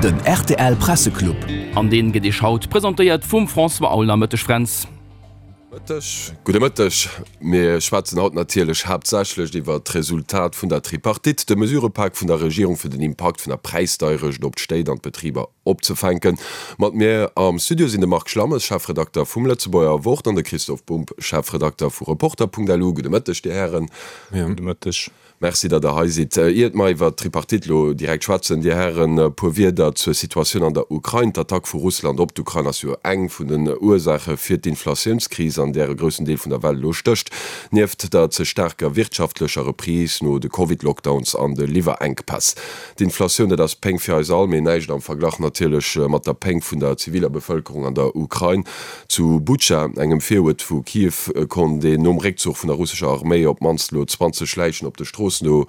Den rtl Presseclub. An deen gëtt Iech haut presentéiert vum François Aulner. Mëtteg Fränz. Mëtteg, gudde Mëtteg. Mir schwätzen haut natierlech haaptsächlech iwwert d'Resultat vun der Tripartite, de Mesurepak vun der Regierung fir den Impakt vun der Präisdeierecht op d'Stéit an d'Betriber opzefänken. Mat mir am Studio sinn de Marc Schlammes, Chefredakter vum Lëtzebuerger Wort an de Christoph Bumb, Chefredakter vu Reporter.lu. Gudde Mëtteg, Dir Hären. Gudde Mëtteg. Merci, datt Der hei sidd. Iert mer iwwert d'Tripartite elo direkt schwätzen, Dir Hären, e puer Wierder zur Situatioun an der Ukrain. D'Attack vu Russland op d'Ukrain ass jo eng vun den Ursaache fir d'Inflatiounskris, an där e groussen Deel vun der Welt elo stécht. Nieft der ze staarker wirtschaftlecher Reprise no de Covid-Lockdowns an de Liwwerenkpäss. D'Inflatioun, dat ass Péng fir eis all, mee näischt am Verglach natierlech mat der Péng vun der ziviler Bevëlkerung an der Ukrain. Zu Butscha, engem Viruert vu Kiew, konnt een nom Réckzuch vun der russescher Arméi op d'mannst elo 20 Läichen op de Stroossen do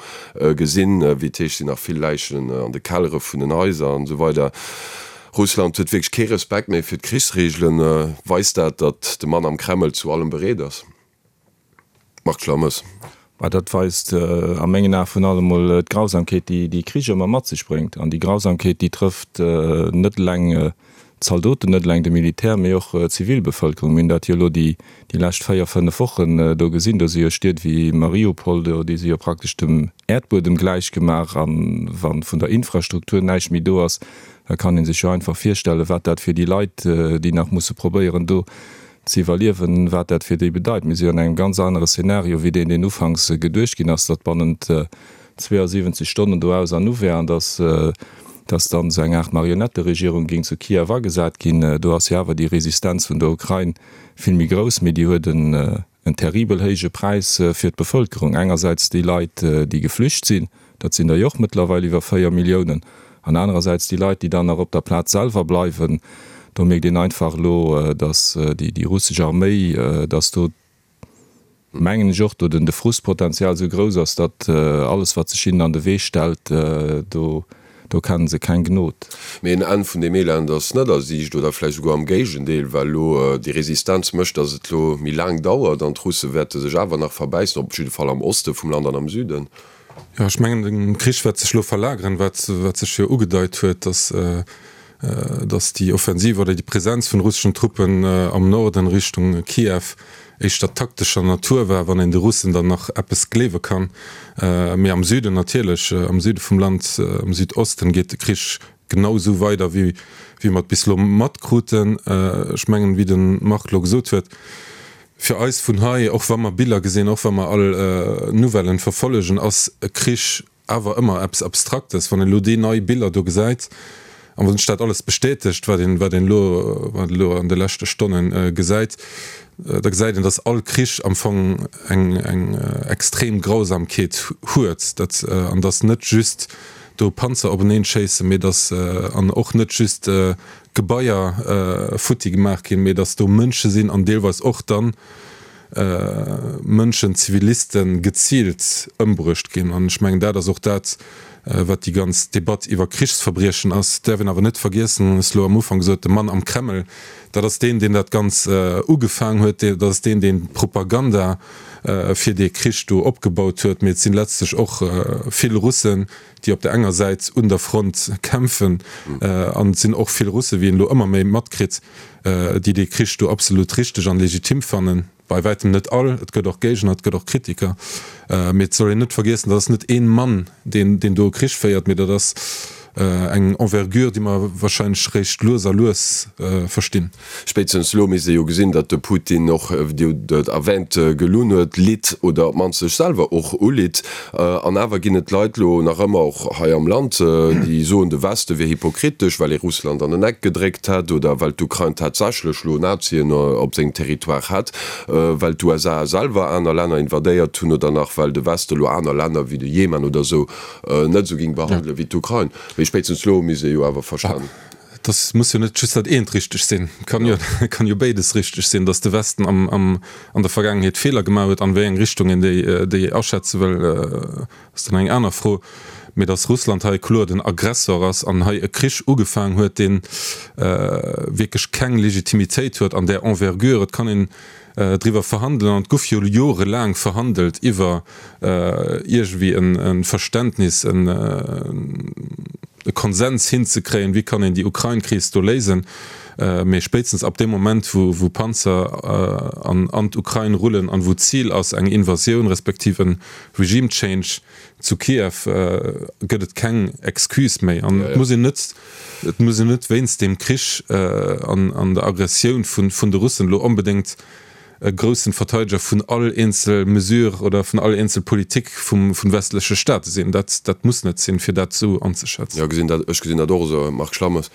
gesinn. Wéi et heescht, sinn nach vill Läichen an de Kellere vun den Haiser an esou weider. Russland huet wierklech kee Respekt méi fir d'Krichsreegelen. Weist dat, datt de Mann am Kreml zu allem bereet ass? Marc Schlammes. Mä dat weist a mengen Ae vun allem emol d'Grausamkeet, déi déi Krich ëmmer mat sech bréngt. An déi Grausamkeet, déi trëfft net eleng d'Zaldoten, net eleng de Militär, mee och d'Zivilbevëlkerung. Mir hunn dat jo elo déi lescht 4, 5 Wochen do gesinn. Do si jo Stied wéi Mariupol, déi si jo praktesch dem Äerdbuedem gläichgemaach. A wa vun der Infrastruktur näischt méi do ass, da kann ee sech jo einfach virstellen, wat dat fir déi Leit, déi nach musse probéieren do ze iwwerliewen, wat dat fir déi bedeit. Mir si jo an engem ganz anere Szenario wéi deen, deen ufanks geduecht ginn ass, datt bannent 72 Stonnen do aus an u wär an datt datt dann esou eng Aart Marionetteregierung géing zu Kiew agesat ginn. Do ass jo awer déi Resistenz vun der Ukrain vill méi grouss, mee déi huet en terribel héije Präis fir d'Bevëlkerung. Engersäits déi Leit, déi geflücht sinn, Dat sinn der jo och mëttlerweil iwwer 4 Milliounen. An anerersäits déi Leit, déi dann nach op der Plaz selwer bleiwen. Do mierkt een einfach elo, datt déi russesch Arméi, datt do, mengen ech och, do den de Frustpotenzial esou grouss ass, datt alles, wat sech hinnen an de Wee stellt, do do kennen se keng Gnod. Mee en Enn vun deem Elend ass net a Siicht, oder vläicht esouguer am Géigendeel, well elo déi Resistenz mécht, datt et elo méi laang dauert an d'Russe wäerte sech awer nach verbäissen, op jidde Fall am Oste vum Land an am Süden. Jo, ech mengen, de Krich wäert sech elo verlageren, wat sech jo ugedeit huet, datt datt déi Offensiv oder déi Presenz vun russeschen Truppen am Norden Richtung Kiew éischter taktescher Natur war, wann een de Russen dann nach eppes gleewe kann. Mee am Süden natierlech, am Süde vum Land, am Südosten geet de Krich genau esou weider, wéi mer et bis elo matkruten. Ech mengen, wéi de Marc elo gesot huet, Fir eis vun hei, och wa mer Biller gesinn, och wa mer all Nouvellen verfollegen, ass e Krich awer ëmmer eppes Abstraktes. Wann een elo déi nei Biller do gesäit an wann sech dat alles bestätegt, wat een, wat een elo, wat een elo an de leschte Stonne gesäit, da gesäit een, datt all Krich am Fong eng, eng extrem Grausamkeet huet, dat, an datt net just do Panzer openeen schéissen, mee datt, an och net just Gebaier futti gemaach ginn, mee datt do Mënsche sinn an deelweis och dann Mënschen, Zivilisten, geziilt ëmbruecht ginn. An ech mengen, dat ass och dat, wat déi ganz Debatt iwwer Krichsverbriechen ass. Et däerf een awer net vergiessen, ech hu lo am Ufank gesot, de Mann am Kreml, dat ass deen, deen dat Ganz ugefaang huet, dat ass deen, deen d'Propaganda fir dee Krich do opgebaut huet. Mee et sinn letztlech och vill Russen, déi op der enger Säit un der Front kämpfen, an et sinn och vill Russen, wéi een elo ëmmer méi matkritt, déi dee Krich do absolut richteg an legitim fannen. Bei wäitem net all, et gëtt och Géigner, et gëtt och Kritiker, mee et soll een net vergiessen, dat ass net een Mann, deen do e Krich féiert, mee dat ass eng Envergure, déi mer wahrscheinlech réischt lues a lues verstinn. Spéitstens elo misst ee jo gesinn, datt de Putin och, wéi Dir et erwähnt, gelunn huet, litt oder op d'mannst sech selwer och ulitt. An awer ginn et Leit elo nach ëmmer, och hei am Land, déi soen, de Weste wier hypokritesch, well ee Russland an en Eck gedréckt hätt oder well d'Ukrain tatsächlech elo Nazien op sengem Territoire hätt, well d'USA selwer aner Länner invadéiert hunn oder nach well de Weste elo aner Länner wéi de Jemen oder esou net esou géing behandelen wéi d'Ukrain. Mee spéitstens elo misst ee jo awer verstan. Et muss jo net just dat eent richteg sinn, et kann jo, et kann jo béides richteg sinn, datt de Westen am, am, an der Vergaangenheet Feeler gemaach huet. An wéi eng Richtung een déi, déi aschätze wëll, ass dann eng aner Fro. Mee datt Russland hei kloer den Aggressor ass an hei e Krich ugefaang huet, dee wierklech keng Legitimitéit huet an där Envergure, et kann een driwwer verhandelen, an et guff jo jorelaang verhandelt iwwer iergendwéi e Verständnis, en. e Konsens hinzekréien, wéi kann een déi Ukrain-Kris do léisen. Mee spéitstens ab deem Moment, wou Panzer an d'Ukrain rullen an wou d'Zil ass eng Invasioun respektiv e Regime change zu Kiew, gëtt et keng Excuse méi. An et muss een net, et muss een net wéinst deem Krich an der Aggressioun vun de Russen elo onbedéngt e groussen Verteideger vun all eenzel Mesure oder vun all eenzel Politik vum vun westleche Staate sinn. Dat dat muss net sinn, fir dat esou anzeschätzen. Jo, gesinn dat, ech gesinn dat och esou, Marc Schlammes.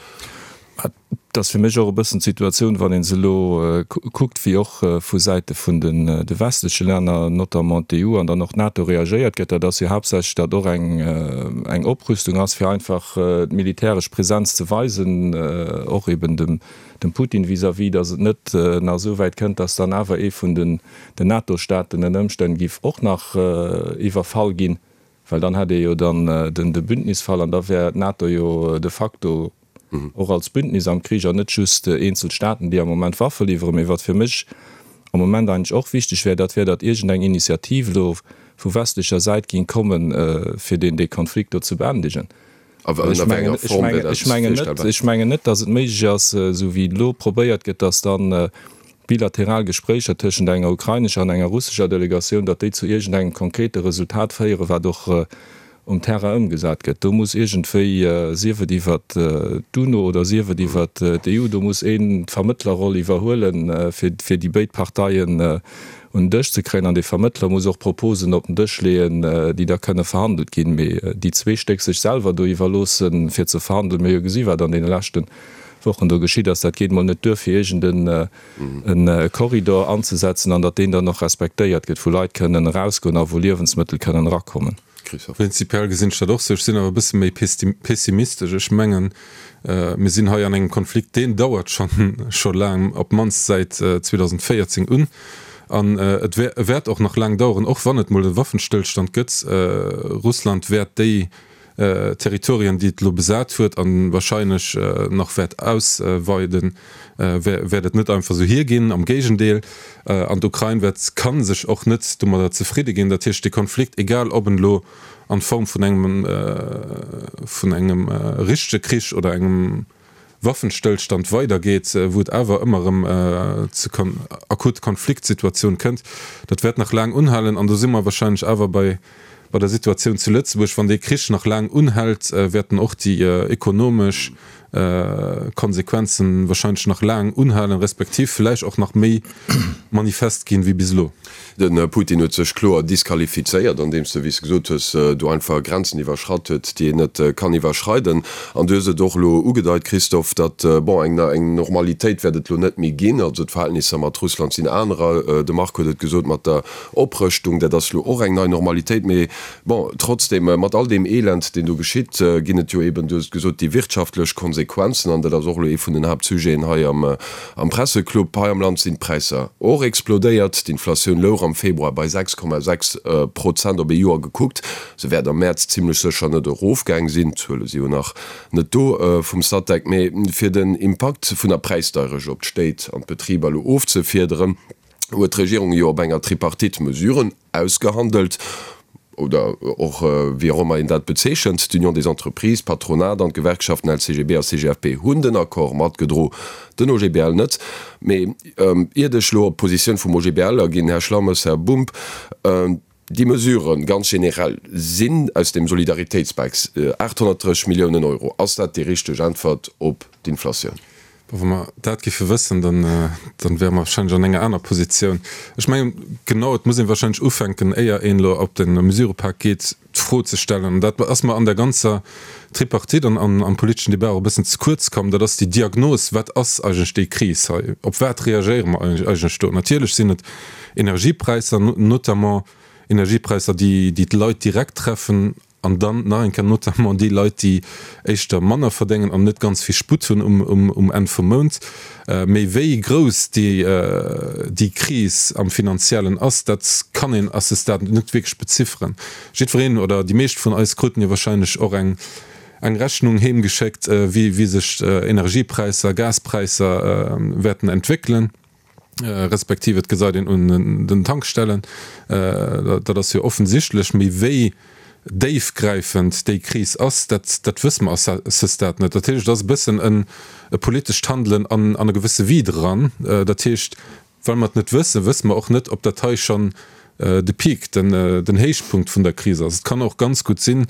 Et ass fir mech och e bëssen d'Situatioun, wann ee se elo kuckt, wéi och vu Säite vun den de westleche Länner, notamment d'EU an dann och d'NATO reagéiert gëtt. Dat ass jo haaptsächlech, datt och eng eng Oprüstung ass, fir einfach d'militäresch Präsenz ze weisen, och eben dem dem Putin vis-à-vis, datt et net nach esou wäit kënnt, datt dann awer ee vun den NATO-Staaten ënner Ëmstänn giff och nach iwwerfall ginn, well dann hätt ee jo dann de Bündnisfall an da wär d'NATO jo de facto och als Bündnis am Krich an net just eenzel Staaten, déi am Moment Waffe liwweren. Mee wat fir mech am Moment eigentlech och wichteg wär, dat wär, datt iergendeng Initiativ elo vu westlecher Säit ging kommen, fir deen dee Konflikt do ze beendegen. Ech mengen net, datt et méiglech ass, esou wéi elo probéiert gëtt, datt dann bilateral Gespréicher tëschent enger ukrainescher an enger russescher Delegatioun, datt déi zu iergendengem konkrete Resultat féieren, wat och um Terrain ëmgesat gëtt. Do muss iergendwéi, sief et iwwert d'UNO oder sief et iwwert d'EU, do muss een d'Vermëttlerroll iwwerhuelen, fir déi béid Parteien un den Dësch ze kréien an dee Vermëttler muss och Proposen op den Dësch leeën, déi da kënne verhandelt ginn. Mee déi zwee Stéck sech selwer do iwwerloossen, fir ze verhandelen, mir hu jo gesi wat an deene leschte Wochen do geschitt ass, dat geet mol net duer, fir iergend e Korridor anzesetzen an datt deen dann och respektéiert gëtt, wou Leit kënnen erausgoen a wou Liewensmëttel kënnen erakommen. Christophe. Prinzipiell gesinn ech dat och sou. Ech sinn awer e bësse méi pessimistesch. Ech mengen, mir sinn hei an engem Konflikt, deen dauert scho laang, op d'mannst säit 2014 un. An et wäert och nach laang daueren, och wann et mol e Waffenstëllstand gëtt. Russland wäert déi Territorien, déi et elo besat huet a wahrscheinlech nach wäert ausweiden, wäert et net einfach esou hierginn. Am Géigendeel. An d'Ukrain wäert, ka sech och net domadder zefridde ginn. Dat heescht, dee Konflikt, egal ob en elo an Form vun engem, vun engem richtege Krich oder engem Waffenstëllstand weidergeet, wou et awer ëmmer erëm zu akute Konfliktsituatioun kënnt, dat wäert nach laang unhalen. An do si mer wahrscheinlech awer bei bei der Situatioun zu Lëtzebuerg. Wann dee Krich nach laang unhält, wäerten och déi ekonomesch Konsequenzen wahrscheinlech nach laang unhalen, respektiv vläicht och nach méi manifest ginn wéi bis elo. De Putin huet sech kloer disqualifizéiert, andeems e, wéi s de gesot hues, do einfach Grenzen iwwerschratt huet, déi een net kann iwwerschreiden. An du hues et och elo ugedeit, Christophe, datt, bon, eng eng Normalitéit wäert et elo net méi ginn. Also d'Verhältnisser mat Russland sinn anerer. De Marc huet et gesot mat der Oprëschtung, dat ass elo och eng nei Normalitéit. Mee bon, trotzdem, mat all deem Elend, deen do geschitt, ginn et jo eben, du hues et gesot, déi wirtschaftlech Konsequenzen. An dat ass och elo ee vun den Haaptsujeten hei am Am Presseclub hei am Land sinn d'Präisser och explodéiert. D'Inflatioun louch am Februar bei 6,6 Prozent op ee Joer gekuckt. Se wäert am Mäerz zimmlech sécher net erofgaang sinn, d'Zuele si jo nach net do vum Statec. Mee fir den Impakt vun der Präisdeierecht op d'Stéit an d'Betriber elo ofzefiederen, huet d'Regierung jo op enger Tripartite Mesuren ausgehandelt, oder och wéi och ëmmer een dat bezeechent. D'Union des Entreprises, d'Patronat an d'Gewerkschaften LCGB a CGFP hunn den Accord matgedro, den OGBL net. Mee iert ech elo op d'Positioun vum OGBL aginn, Här Schlammes, Här Bumb, déi Mesuren ganz generell sinn aus dem Solidaritéitspak 830 Milliounen Euro. Ass dat déi richteg Äntwert op d'Inflatioun? Wa mer dat géife wëssen, dann wäre mer wahrscheinlech an enger aner Positioun. Ech mengen, genau, et muss ee wahrscheinlech ufänken, éier een elo op de Mesurëpak geet, d'Fro ze stellen, an dat ass mer an der ganzer Tripartite an am politeschen Débat och e bëssen ze kuerz komm, dat ass déi Diagnos, Wat ass eigentlech déi Kris hei? Op wat reagéiere mer eigentlech do? Natierlech sinn et Energiepräisser, notamment Energiepräisser, déi d'Leit direkt treffen, An dann nach eng Kéier notamment déi Leit, déi éischter manner verdéngen an net ganz vill Sputt hunn um Enn vum Mount. Mee wéi grouss déi Kris am Finanziellen ass, dat kann een à ce stade net wierklech bezifferen. Jiddwereen oder déi meescht vun eis kruten jo wahrscheinlech och eng Rechnung heemgeschéckt, wéi sech Energiepräisser, Gaspräisser wäerten entwéckelen. respektiv et gesäit een un den Tankstellen, dat ass jo offensichtlech, mee wéi déifgräifend déi Kris ass, dat, dat wësse mer à ce stade net. Dat heescht, et ass e bëssen en e politescht Handelen an, an e gewësse Vide eran. Dat heescht, well mer et net wëssen, wësse mer och net, ob dat hei schonn de Peak, den, den Héichpunkt vun der Kris ass. Et kann och ganz gutt sinn,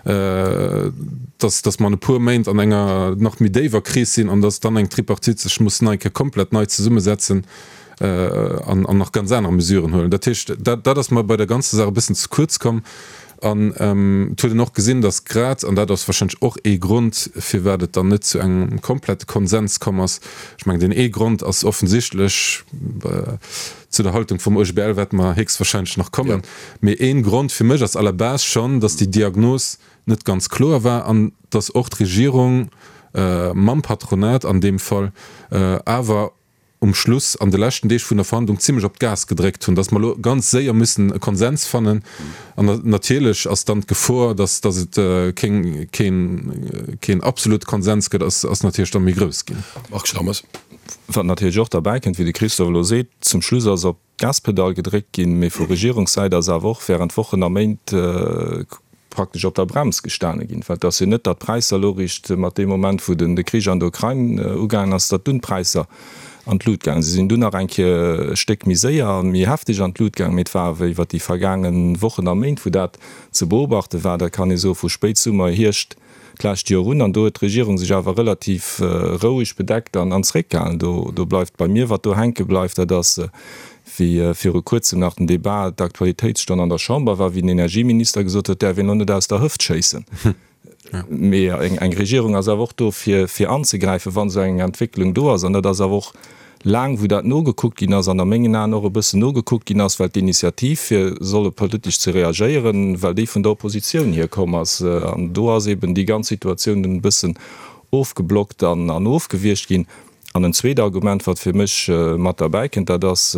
dass, dass mer an e puer Méint an enger nach méi déiwer Kris sinn an dass dann eng Tripartite sech muss nei Kéier komplett nei zesummesetzen an, an nach ganz aner Mesuren huelen. Dat heescht, dat, dat ass mer bei der ganzer Saach e bëssen ze kuerz komm. An et huet een och gesinn, dass grad, an dat ass warscheinlech och ee Grond, firwat et dann net zu engem komplette Konsens komm ass, ech mengen, deen ee Grond ass offensichtlech, zu der Haltung vum OGBL wäerte mer héchstwahrscheinlech nach kommen, mee ee Grond fir mech ass à la base schonn, dass déi Diagnos net ganz kloer war an dass och d'Regierung mam Patronat an deem Fall awer um Schluss an de leschten Deeg vun der Verhandlung zimlech op d'Gas gedréckt hunn, dass mer elo ganz séier müssen e Konsens fannen. An natierlech ass dann d'Gefor, dass dass et keng keen keen absolute Konsens gëtt, ass ass natierlech da méi grouss ginn. Marc Schlammers. Wat natierlech och derbäi kënnt, wéi de Christophe elo seet, zum Schluss ass op d'Gaspedall gedréckt ginn, mee vu Regierungssäit ass awer och während Wochen a Méint praktesch op der Brems gestane ginn. Well et ass jo net, datt d'Präisser elo eréischt mat deem Moment, wou de Krich an der Ukrain ugaangen ass, datt dunn d'Präisser an d'Lut gaangen sinn. Si sinn dunn nach eng Kéier e Stéck méi séier a méi hefteg an d'Lut gaangen, mee et war awer iwwer déi vergaange Wochen a Méint, wou dat ze beobachte war, dat kann ee soe vu Spéitsummer, Hierscht d'lescht Joer un. An do huet d'Regierung sech awer relativ roueg bedeckt an zréckgehalen. Do bleift bei mir, wat do hänke bleift, dat ass, wéi viru Kuerzem nach den Débat, d'Aktualitéitsstonn an der Chamber war, wéi den Energieminister gesot huet, däerf een elo net aus der Hëft schéissen. Mee eng Regierung ass awer och do, fir anzegräifen, wann esou eng Entwécklung do ass. An dat ass awer och laang, wou dat nogekuckt ginn ass, an a mengen Aen och e bëssen nogekuckt ginn ass, well d'Initiativ, fir solle politesch ze reagéieren, well déi vun der Oppositioun hierkomm ass. An do ass eben déi ganz Situatioun dunn e bëssen ofgeblockt an ofgewiergt ginn. An en zweet Argument, wat fir mech mat derbäi kënnt, dat ass,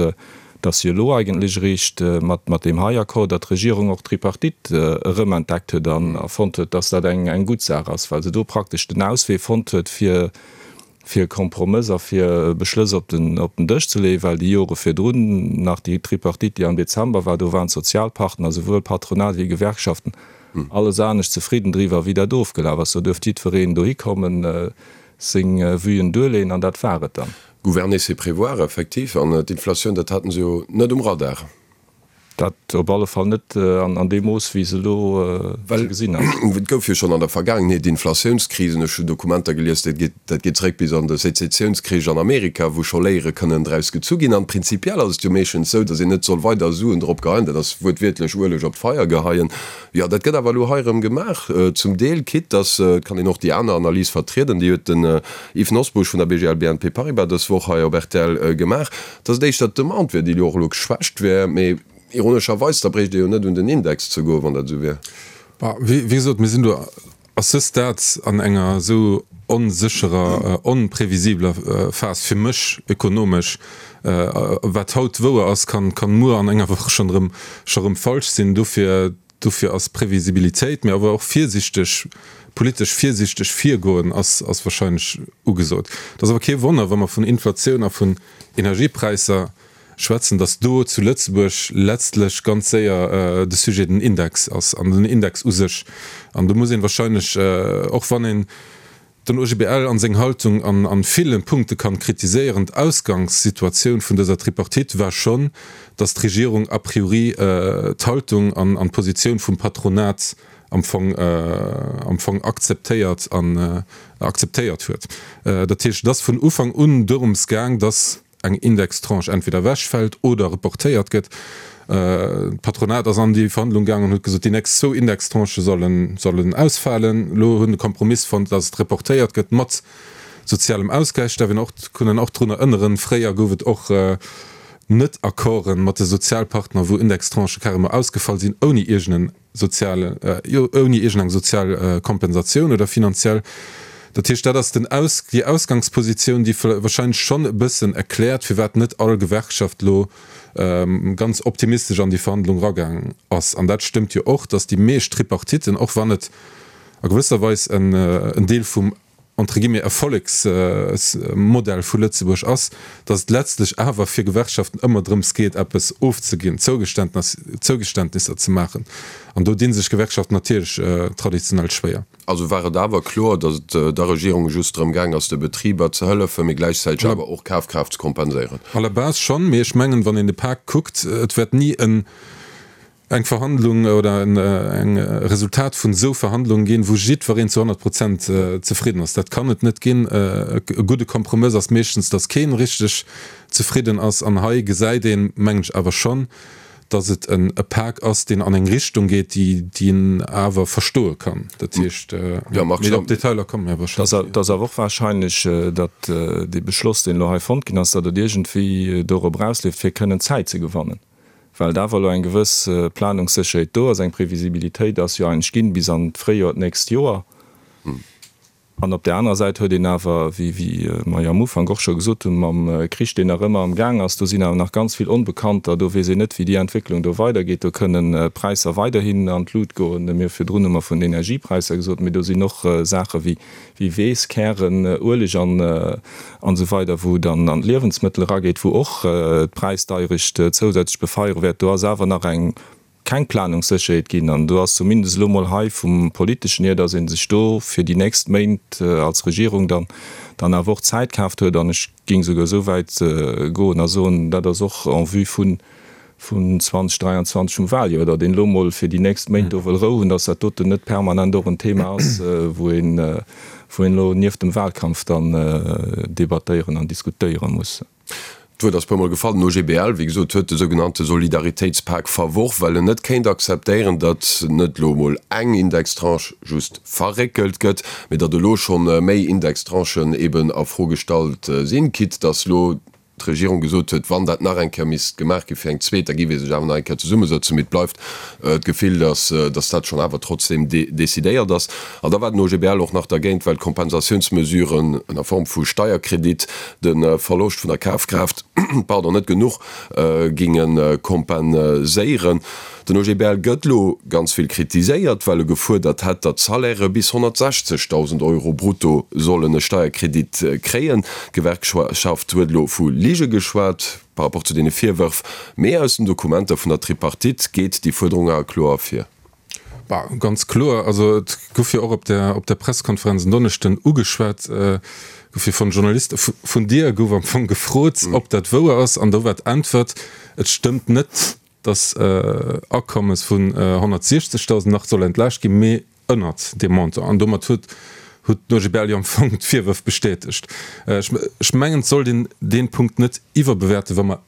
dass jo elo eigentlech eréischt mat deem hei Accord, datt d'Regierung och d'Tripartite erëmentdeckt huet an fonnt huet, dass dat eng gutt Saach ass, well se do praktesch den Auswee fonnt huet, fir e Kompromëss a fir Beschlëss op den Dësch ze leeën, well déi Jore virdrun, nach déi Tripartite, déi am Dezember war, do waren d'Sozialpartner, souwuel Patronat wéi Gewerkschaften, alles anescht zefridden driwwer, wéi dat ofgelaf ass. Do duerft jiddwereen dohi kommen, seng Vuen duerleeën an dat war et dann. Gouverner c'est prévoir, effektiv. An d'Inflatioun, dat haten se jo net um Radar. Dat op alle Fall net an deem Mooss, wéi se elo ze gesinn ass. Well et gouf jo schonn an der Vergaangenheet Inflatiounskrisen. Ech hunn Dokumenter gelies, dat geet, dat geet zeréck bis an de Sezessiounskrich an Amerika, wou scho Léiere kënnen draus gezu ginn. An prinzipiell ass et jo meeschtens esou, datt een net soll weider Suen drop geheien, dat ass wuertwiertlech Ueleg op d'Feier geheien. Jo, dat gëtt awer elo hei erëm gemaach, zum Deel, quitte dass, et kann een och déi aner Analys vertrieden, déi huet den Yves Nosbusch vun der BGL BNP Paribas dës Woch hei op rtl gemaach, dass et éischter d'Demande wier, déi elo och elo geschwächt wär. Mee ironescherweis, da bréicht ee jo net un den Index ze goen, wann dat esou wier. Bah, wéi gesot, mir sinn do à ce stade an enger esou onsécherer, onprevisibler Phas fir mech ökonomesch. Wat haut wouer ass, kann muer an enger Woch schonn erëm scho rëm falsch sinn. Dofir, dofir ass Previsibilitéit, mee awer och virsichteg, politesch virsichteg virgoen ass, ass wahrscheinlech ugesot. Et ass awer kee Wonner, wa mer vun Inflatioun a vun Energiepräisser schwätzen, datt do zu Lëtzebuerg letztlech ganz séier de Sujet den Index ass an den Index u sech. An do muss een wahrscheinlech, och wann een den OGBL an seng Haltung an ville Punkte kann kritiséieren, d'Ausgangssituatioun vun dëser Tripartite war schonn, datt d'Regierung a priori d'Haltung an d'Positioun vum Patronat am Fong am Fong akzeptéiert an akzeptéiert huet. Dat heescht, et ass vun Ufank un dorëms gaang, datt eng Indextranche entweder ewechfält oder reportéiert gëtt. D'Patronat ass an déi Verhandlung gaangen an huet gesot, déi nächst zwou Indextranchë sollen, sollen ausfalen. Elo hunn e Kompromiss fonnt, datt et reportéiert gëtt mat sozialem Ausgläich. Däerf een och, kann een och drun erënneren, fréier gouf et och Net-Accorden mat de Sozialpartner, wou Indextranchë carrément ausgefall sinn, ouni iergend en sozial, jo, ouni iergendeng sozial Kompensatioun oder finanziell. Dat heescht, dat ass den Aus, déi Ausgangspositioun, déi wahrscheinlech schonn e bëssen erkläert, firwat net all Gewerkschaft elo ganz optimistesch an déi Verhandlung eragaang ass. An dat stëmmt jo och, datt déi meescht Tripartiten, och wann et a gewësser Weis en Deel vum. entre guillemets, Erfollegsmodell vu Lëtzebuerg ass, datt et letztlech awer fir Gewerkschaften ëmmer drëms geet, eppes ofzeginn, Zougeständnisser ze maachen. An do di sech Gewerkschaften natierlech traditionell schwéier. Also war et awer kloer, datt et der Regierung just drëm gaang ass, de Betriber ze hëllefen, mee gläichzäiteg awer och Kafkraaft ze kompenséieren? À la base schonn, mee ech mengen, wann een de Pak kuckt, et wäert ni en eng Verhandlung oder en Resultat vun esou Verhandlungen ginn, wou jiddwereen zu 100 Prozent zefridden ass. Dat kann et net ginn. E gudde Kompromëss ass meeschtens, datt keen richteg zefridden ass. An hei gesäit een, mengen ech, awer schonn, datt et e Pak ass, deen an eng Richtung geet, déi een awer verstoe kann. Dat heescht, mee op d'Detailer komme mir wahrscheinlech. Et ass awer och wahrscheinlech, datt dee Beschloss, deen elo hei fonnt ginn ass, datt et iergendwéi dorop erausleeft, fir kënnen Zäit ze gewannen. Well et awer elo eng gewëss Planungssécherheet do ass, eng Previsibilitéit ass jo eigentlech ginn bis an d'Fréijoer d'nächst Joer. An op där anerer Säit huet een awer, wéi mer jo am Ufank och scho gesot hunn, mam Krich, deen nach ëmmer am Gaang ass, do sinn awer nach ganz vill Onbekannter, do weess een net, wéi déi Entwécklung do weidergeet, do kënnen Präisser weiderhin an d'Lut goen. Mir virdrun hu mer vun den Energiepräisser gesot, mee do sinn och Saache wéi wéi Weess, Kären, Ueleg an esou weider, wou dann an d'Liewensmëttel erageet, wou och d'Präisdeierecht zousätzlech befeiere wäert. Do ass awer nach eng keng Planungssécherheet ginn an do ass zumindest elo mol hei vum Politeschen hier, datt ee sech do fir déi nächst Méint als Regierung dann dann awer och Zäit kaaft huet. An ech géing souguer esou wäit goen a soen, dat ass och en vue vun vun 2023 vum Wahljoer, datt een elo mol fir déi nächst Méint do wëll Rou hunn, datt dat doten net permanent och en Thema ass, wou een, wou een elo nieft dem Wahlkampf dann debattéieren an diskutéiere muss. D'Wuert ass puermol gefall. Den OGBL, wéi gesot, huet de sougenannte Solidaritéitspak verworf, well en net kéint akzeptéieren, datt net elo emol eng Indextranche just verréckelt gëtt, mee datt elo scho méi Indextranchen eben a Fro gestallt sinn, quitte datt elo d'Regierung gesot huet, wann dat nach eng Kéier misst gemaach gi fir eng zweet, da géif ee sech awer nach eng Kéier zesummesëtzen. Mee et bleift d'Gefill, datt datt dat schonn awer trotzdeem decidéiert ass. An da war den OGBL och nach dergéint, well d'Kompensatiounsmesuren ënner Form vu Steierkredit de Verloscht vun der Kafkraaft, pardon, net genuch géinge kompenséieren. Den OGBL gëtt elo ganz vill kritiséiert, well e gefuerdert hätt, datt Salairë bis 160.000 Euro brutto sollen e Steierkredit kréien. D'Gewerkschaft huet elo vu Lige geschwat par rapport zu deene Virwërf, mee aus den Dokumenter vun der Tripartite geet déi Fuerderung awer kloer ervir. Bah, ganz kloer. Also et gouf jo och op der, op der Pressekonferenz en Donneschden ugeschwat, gouf jo von Journaliste, vun dir gouf am Fong gefrot, ob dat wouer ass, an do war d'Äntwert, et stëmmt net, dass Akommes vun 160.000 nach soll entlaascht ginn, mee ënnert deem Montant. An domat huet huet den OGBL jo am Fong d'Virwërf bestätegt. Ech mengen, et sollt een dee Punkt net iwwerbewäerten, wa mer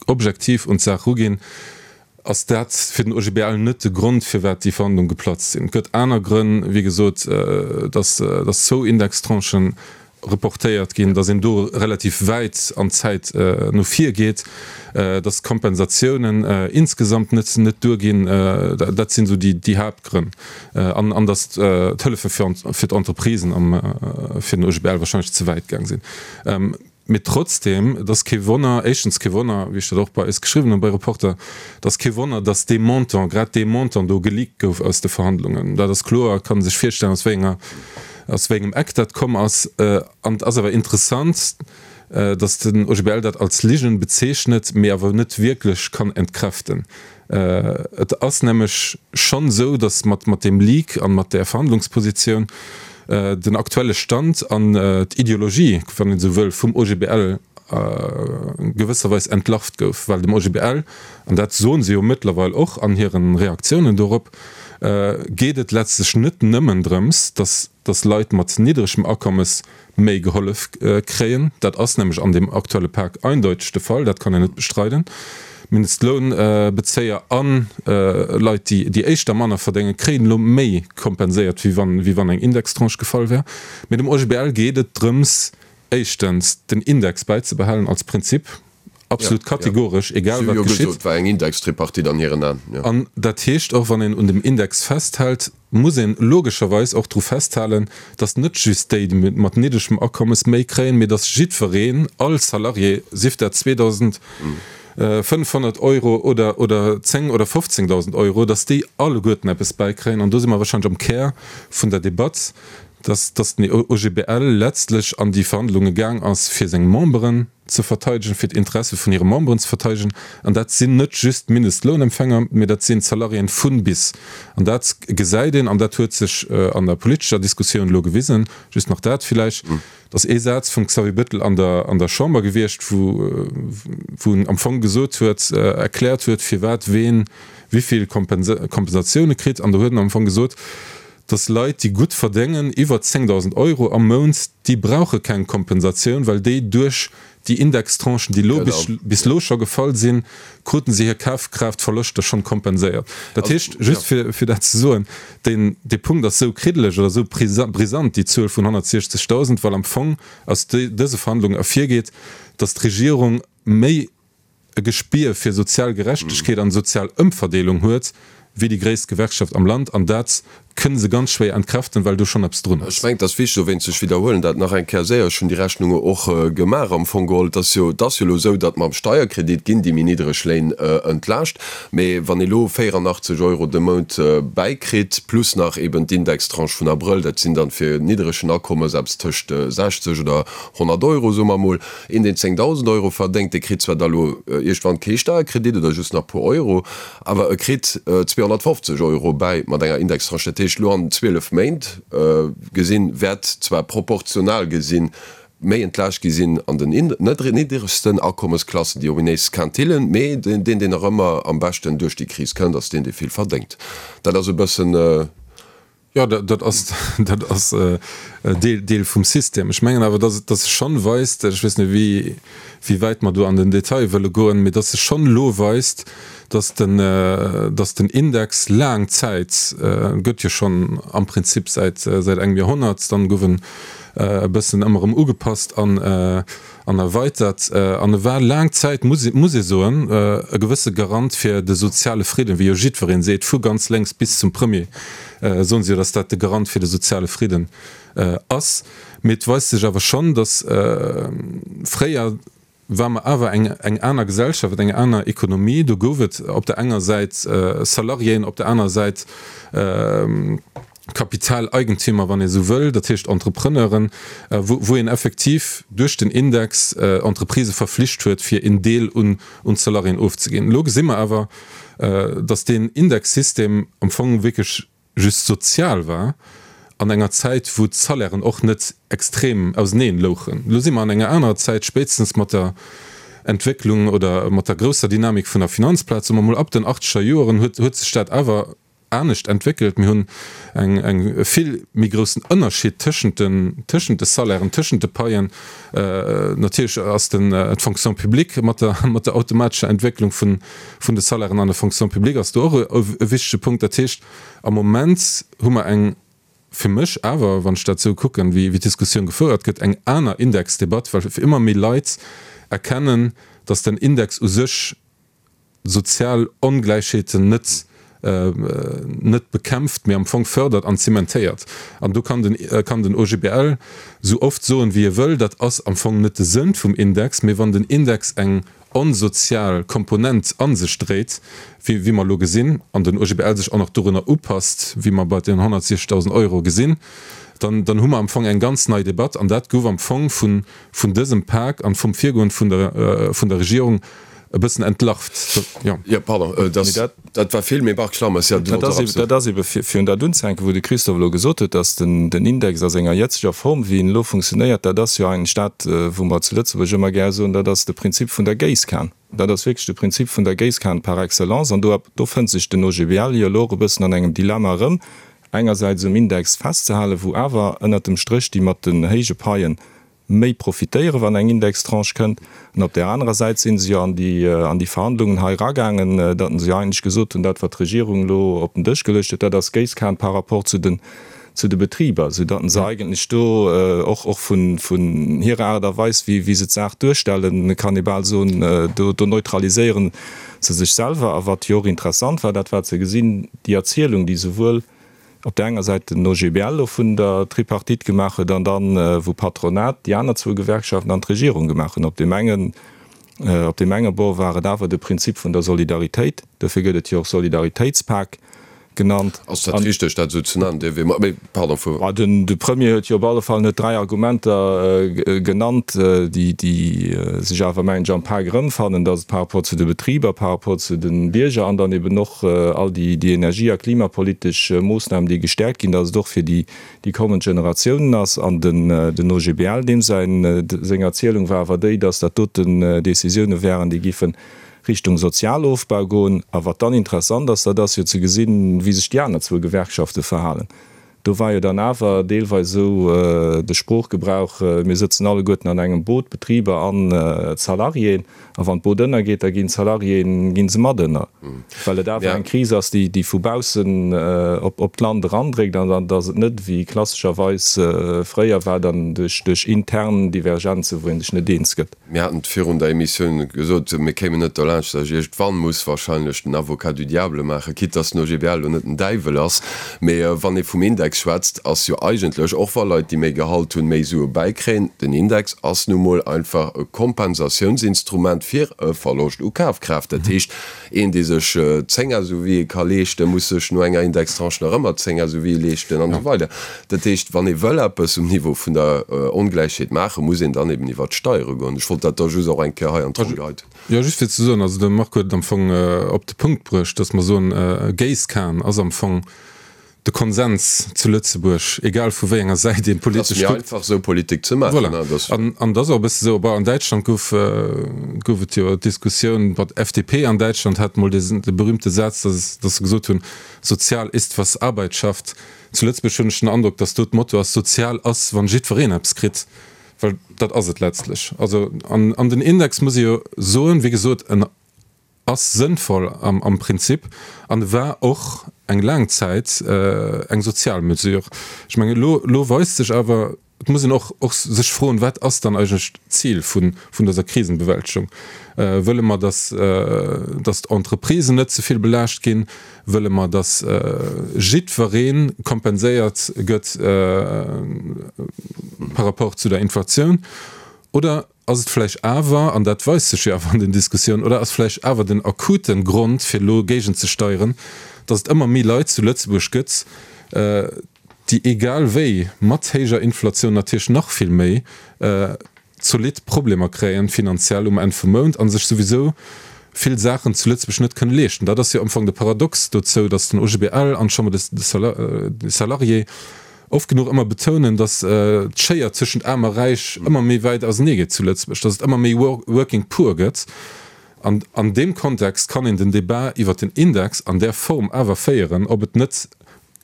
objektiv un d'Saach ruginn, ass dat fir den OGBL net de Grond, firwat déi Verhandlung geplatzt sinn. Et gëtt aner Grënn, wéi gesot, dass dass zwou Indextranchen reportéiert ginn, dass een do relativ wäit an d'Zäit no vir geet, dass d'Kompensatiounen insgesamt net net duerginn. Dat sinn esou déi déi Haaptgrënn. An an dass d'Hëllefe fir fir d'Entreprisen am fir den OGBL wahrscheinlech ze wäit gaang sinn. Mee trotzdem, et ass kee Wonner, éischtens kee Wonner, wéi ech dat och bei eis geschriwwen hunn, bei Reporter, et ass kee Wonner, datt dee Montant, grad dee Montant do geleakt gouf aus de Verhandlungen. Dat ass kloer, et kann ee sech virstellen, aus wéi enger, aus wéi engem Eck dat komm ass. An et ass awer interessant, datt den OGBL dat als Ligen bezeechnet, mee awer net wierklech kann entkräften. Et ass nämlech schonn esou, datt mat mat deem Leak an mat där Verhandlungspositioun den aktuelle Stand an d'Ideologie, wann een esou wëll, vum OGBL gewësserweis entlarvt gouf, well dem OGBL, an dat soen se jo mëttlerweil och an hire Reaktiounen dorop, geet et letztlech net nëmmen drëms, datt datt Leit mat niddregem Akommes méi gehollef kréien. Dat ass nämlech an deem aktuelle Pak eindeuteg de Fall, dat kann een net bestreiden. Mindestlounbezéier a Leit, déi éischter manner verdéngen, kréien elo méi kompenséiert, wéi wann, wéi wann eng Indextranche gefall wär. Mee dem OGBL geet et drëms, éischtens den Index bäizebehalen als Prinzip, absolut kategoresch, egal wat geschitt. War eng Indextripartite an hiren Aen, jo. An dat heescht och, wann een un dem Index festhält, muss een logescherweis och dru festhalen, datt net just déi mat niddregem Akommes méi kréien, mee datt jiddwereen, all Salarié, sief dat 2.500 Euro oder oder 10 oder 15.000 Euro, datt déi alleguerten eppes bäikréien. An do si mer wahrscheinlech am Kär vun der Debatt. Dass, dass den OGBL letztlech an déi Verhandlunge gaang ass, fir seng Memberen ze verteidegen, fir d'Interesse vun hire Memberen ze verteidegen. An dat sinn net just d'Mindestlounempfänger, mee dat sinn d'Salariéen vun bis. An dat gesäit een, an dat huet sech an der politescher Diskussioun elo gewisen, just nach dat villäicht, Et ass ee Saz vum Xavier Bettel an der an der Chamber gewiescht, wou wou en am Fong gesot huet, erkläert huet, firwat ween wéivill Kompensatioune kritt. An do huet en am Fong gesot, datt Leit, déi gutt verdéngen, iwwer 10.000 Euro am Mount, déi brauche keng Kompensatioun, well déi duerch déi Indextranchen, déi elo bis bis elo scho gefall sinn, kruten se hir Kafkraaftverloschter schonn kompenséiert. Dat heescht, just fir fir dat ze soen, Deen dee Punkt ass esou kriddeleg oder esou brisant, déi Zuel vun 160.000, well am Fong aus dëse Verhandlungen ervirgeet, datt d'Regierung méi e Gespier fir sozial Gerechtegkeet an sozial Ëmverdeelung huet wéi déi gréisst Gewerkschaft am Land. An dat kënne se ganz schwéier entkräften, well do schonn eppes drun ass. Ech mengen, et ass wichteg, dowéinst, ech widderhuelen dat nach eng Kéier séier, ech hunn déi Rechnunge och gemaach am Fong geholl, et ass jo, et ass jo elo esou, datt mam Steierkredit ginn déi méi niddreg Léin entlaascht. Mee wann ee lo 84 Euro de Mount bäikritt, plus nach eben d'Indextranche vun Abrëll, dat sinn dann fir niddregen Akommes eppes tëscht 60 oder 100 Euro, soe mer emol. Een, deen 10.000 Euro verdéngt, dee kritt zwar da lo iergendwann kee Steierkredit oder just nach puer Euro, awer e kritt 250 Euro bäi mat enger Indextranche. Dat heescht, lo an 12 Méint gesinn, wäert zwar proportional gesinn méi entlaascht gi sinn an den nidderegsten Akommesklassen, déi ominéis Quintillen, mee deen, deen nach ëmmer am beschten duerch déi Kris kënnt, ass deen, dee vill verdéngt. Dat ass e bëssen. Jo, dat ass, dat ass Deel, Deel vum System. Ech mengen awer, dass et, dass sech schonn weist, ech weess net, wéi, wéi wäit mer do an den Detail wëlle goen, mee dass sech schonn elo weist, dass den, dass den Index laang Zäit, gëtt jo schonn am Prinzip säit, säit engem Joerhonnert, dann gouf en e bëssen ëmmer erëm ugepasst an an erweitert. An e war laang Zäit, muss muss ee soen, e gewësse Garant fir de soziale Fridden, wéi jo jiddweree seet, vu ganz lénks bis zum Premier soen se jo, datt dat de Garant fir de soziale Fridden ass. Mee et weist sech awer schonn, datt fréier war mer awer eng eng aner Gesellschaft, eng aner Ekonomie. Do gouf et op der enger Säit Salariéen, op der anerer Säit Kapitaleigentümer, wann ee sou wëll, dat heescht Entrepreneuren, wou wou een effektiv duerch den Index Entreprisë verflicht huet, fir een Deel un un d'Salariéen ofzeginn. Elo gesi mer awer, datt deen Indexsystem am Fong wierklech just sozial war an enger Zäit, wou d'Salairen och net extrem auseneen louchen. Elo si mer an enger anerer Zäit, spéitstens mat der Entwécklung oder mat der grousser Dynamik vun der Finanzplaz, soe mer mol ab den achtzeger Joeren, huet huet sech dat awer anescht entwéckelt. Mir hunn eng eng e vill méi groussen Ënnerschied tëschent den tëschent de Salairen, tëschent de Paien. Natierlech ass den d'Fonction publique mat der mat der automatescher Entwécklung vun vun de Salairen an der Fonction publique ass do och e wichtege Punkt. Dat heescht, am Moment hu mer eng, fir mech awer, wann ech dat esou kucken, wéi d'Diskussioun gefouert gëtt, eng aner Indexdebatt, well ëmmer méi Leit erkennen, datt den Index u sech sozial Ongläichheeten net net bekämpft, mee am Fong fördert an zementéiert. An do kann den kann den OGBL esou oft soen, wéi e wëll, dat ass am Fong net de Sënn vum Index, mee wann den Index eng onsozial Komponent a sech dréit, wéi wéi mer elo gesinn, an den OGBL sech och nach dorunner upasst, wéi mer bei den 160.000 Euro gesinn, dann dann hu mer am Fong eng ganz nei Debatt. An dat gouf am Fong vun vun dësem Pak an vum Virgoen vun der vun der Regierung e bëssen entlarvt. Jo. Jo, pardon, dat dat war vill, mee Marc Schlammes, jo, du wollt och eppes soen. Dat ass ebe fir fir un dat unzehänken, wou de Christophe elo gesot huet, datt den den Index a senger jëtzeger Form, wéi en elo funktionéiert, dat ass jo eigentlech dat, wou mer zu Lëtzebuerg ëmmer gär soen, dat ass de Prinzip vun der Géisskan. Dat ass wierklech de Prinzip vun der Géisskan par excellence. An do do fënnt sech den OGBL jo elo och e bëssen an engem Dilemma erëm, engersäits um Index festzehalen, wou awer ënnert dem Stréch déi mat den héije Paien méi profitéieren, wann eng Indextranche kënnt. An op där anerer Säit si se jo an déi, an déi Verhandlungen hei eragaangen, datt se jo eigentlech gesot hunn, dat wat d'Regierung elo op den Dësch geluecht huet, dat ass Géisskan par rapport zu den, zu de Betriber, soudatt se eigentlech do och, och vun, vun hirer Aart a Weis, wéi, wéi se d'Saach duerstellen, kann ee bal soen, do, do neutraliséiere se sech selwer. A wat jo och interessant war, dat war ze gesinn, déi Erzielung, déi souwuel op där enger Säit den OGBL elo vun der Tripartite gemaach huet an dann, wou Patronat, déi aner zwou Gewerkschaften an d'Regierung gemaach hunn. Op deem engen, op deem enge Bord war et awer de Prinzip vun der Solidaritéit, dofir gëtt et jo och Solidaritéitspak. genannt. Ass dat richteg, dat esou ze nennen? Dierf ee, mee pardon, fuer. Bah, den, de Premier huet jo op alle Fall net 3 Argumenter genannt, déi, déi sech awer, mengen ech, am Pak erëmfannen, dass et par rapport zu de Betriber, par rapport zu de Bierger an dann eben och all déi, déi energie a klimapolitesch Moossnamen, déi gestäerkt ginn, dass et och fir déi, déi kommend Generatiounen ass. An den, den OGBL, deem säin, seng Erzielung war awer déi, dass dat doten Décisioune wären, déi giffen Richtung Sozialofbau goen. A wat dann interessant ass, dat ass jo ze gesinn, wéi sech déi aner zwou Gewerkschafte verhalen. Do war jo dann awer deelweis esou de Sproochgebrauch, mir sëtzen alleguerten an engem Boot, d'Betriber an d'Salariéen, a wann d'Boot ënnergeet, da ginn d'Salariéen, gi se mat ënner, well et awer eng Kris ass, déi déi vu baussen op d'Land erandréckt an datt et net, wéi klassescherweis fréier war, dann duerch intern Divergenzen, wou ee sech net eens gëtt. Mir haten et virun der Emissioun gesot, mir kéimen net dolaanscht, datt ech iergendwann muss wahrscheinlech den Avocat du diable maachen, quitte datt den OGBL elo net den Däiwel ass. Mee wann ee vum Index schwätzt, ass jo eigentlech, och wa Leit, déi méi Gehalt hunn, méi Sue bäikréien, den Index ass nu mol einfach e Kompensatiounsinstrument fir e Verloscht u Kafkraaft. Dat heescht, Een, dee sech 10 SUVe ka leeschten, muss sech no enger Indextranche nach ëmmer 10 SUVe leeschten an esou weider. Dat heescht, wann ee wëll eppes um Niveau vun der Ongläichheet maachen, muss een dann eben iwwert d'Steiere goen. Ech wollt dat da just och eng Kéier hei an d'Ronn geheit hunn. Jo, just fir ze soen, also de Marc huet et am Fong op de Punkt bruecht, datt mer soen, Géisskan ass am Fong de Konsens zu Lëtzebuerg, egal vu wéi enger Säit een politesch kuckt. Et ass méi einfach esou Politik ze maachen. Voilà. An, an et ass och e bësse esou, bon, an Däitschland gouf, gouf et jo d'Diskussioun, bon, d'FDP an Däitschland hat mol dee, de berühmte Saz, dass, dass se gesot hunn, Sozial ist, was Arbeit schafft. Zu Lëtzebuerg hunn ech den Androck, dass do d'Motto ass, Sozial ass, wann jiddwereen eppes kritt. Well dat ass et letztlech. Also, an, an den Index, muss ee jo soen, wéi gesot, en ass sënnvoll am Prinzip an e war och eng laang Zäit eng sozial Mesure. Ech mengen, elo, elo weist sech awer, et muss een och, och sech froen, Wat ass dann eigentlech d'Zil vun, vun dëser Krisenbewältegung? Wëlle mer, dass, dass d'Entreprisen net ze vill belaascht ginn? Wëlle mer, dass jiddweree kompenséiert gëtt par rapport zu der Inflatioun? Oder Ass et vläicht awer, an dat weist sech jo awer an den Diskussiounen, oder ass vläicht awer den akute Grond, fir elo géigenzesteieren, datt et ëmmer méi Leit zu Lëtzebuerg gëtt, déi egal wéi, mat héijer Inflatioun natierlech nach vill méi, zolidd Problemer kréien, finanziell um Enn vum Mount, a sech souwisou vill Saachen zu Lëtzebuerg net kënne leeschten. Dat ass jo am Fong de Paradox dozou, datt den OGBL an d'Chambre des Salariés oft genuch ëmmer betounen, datt d'Schéier tëschent Aarm a Räich ëmmer méi wäit ausenee geet zu Lëtzebuerg, datt et ëmmer méi Working Poor gëtt. An an deem Kontext kann een den Débat iwwert den Index an där Form awer féieren, ob et net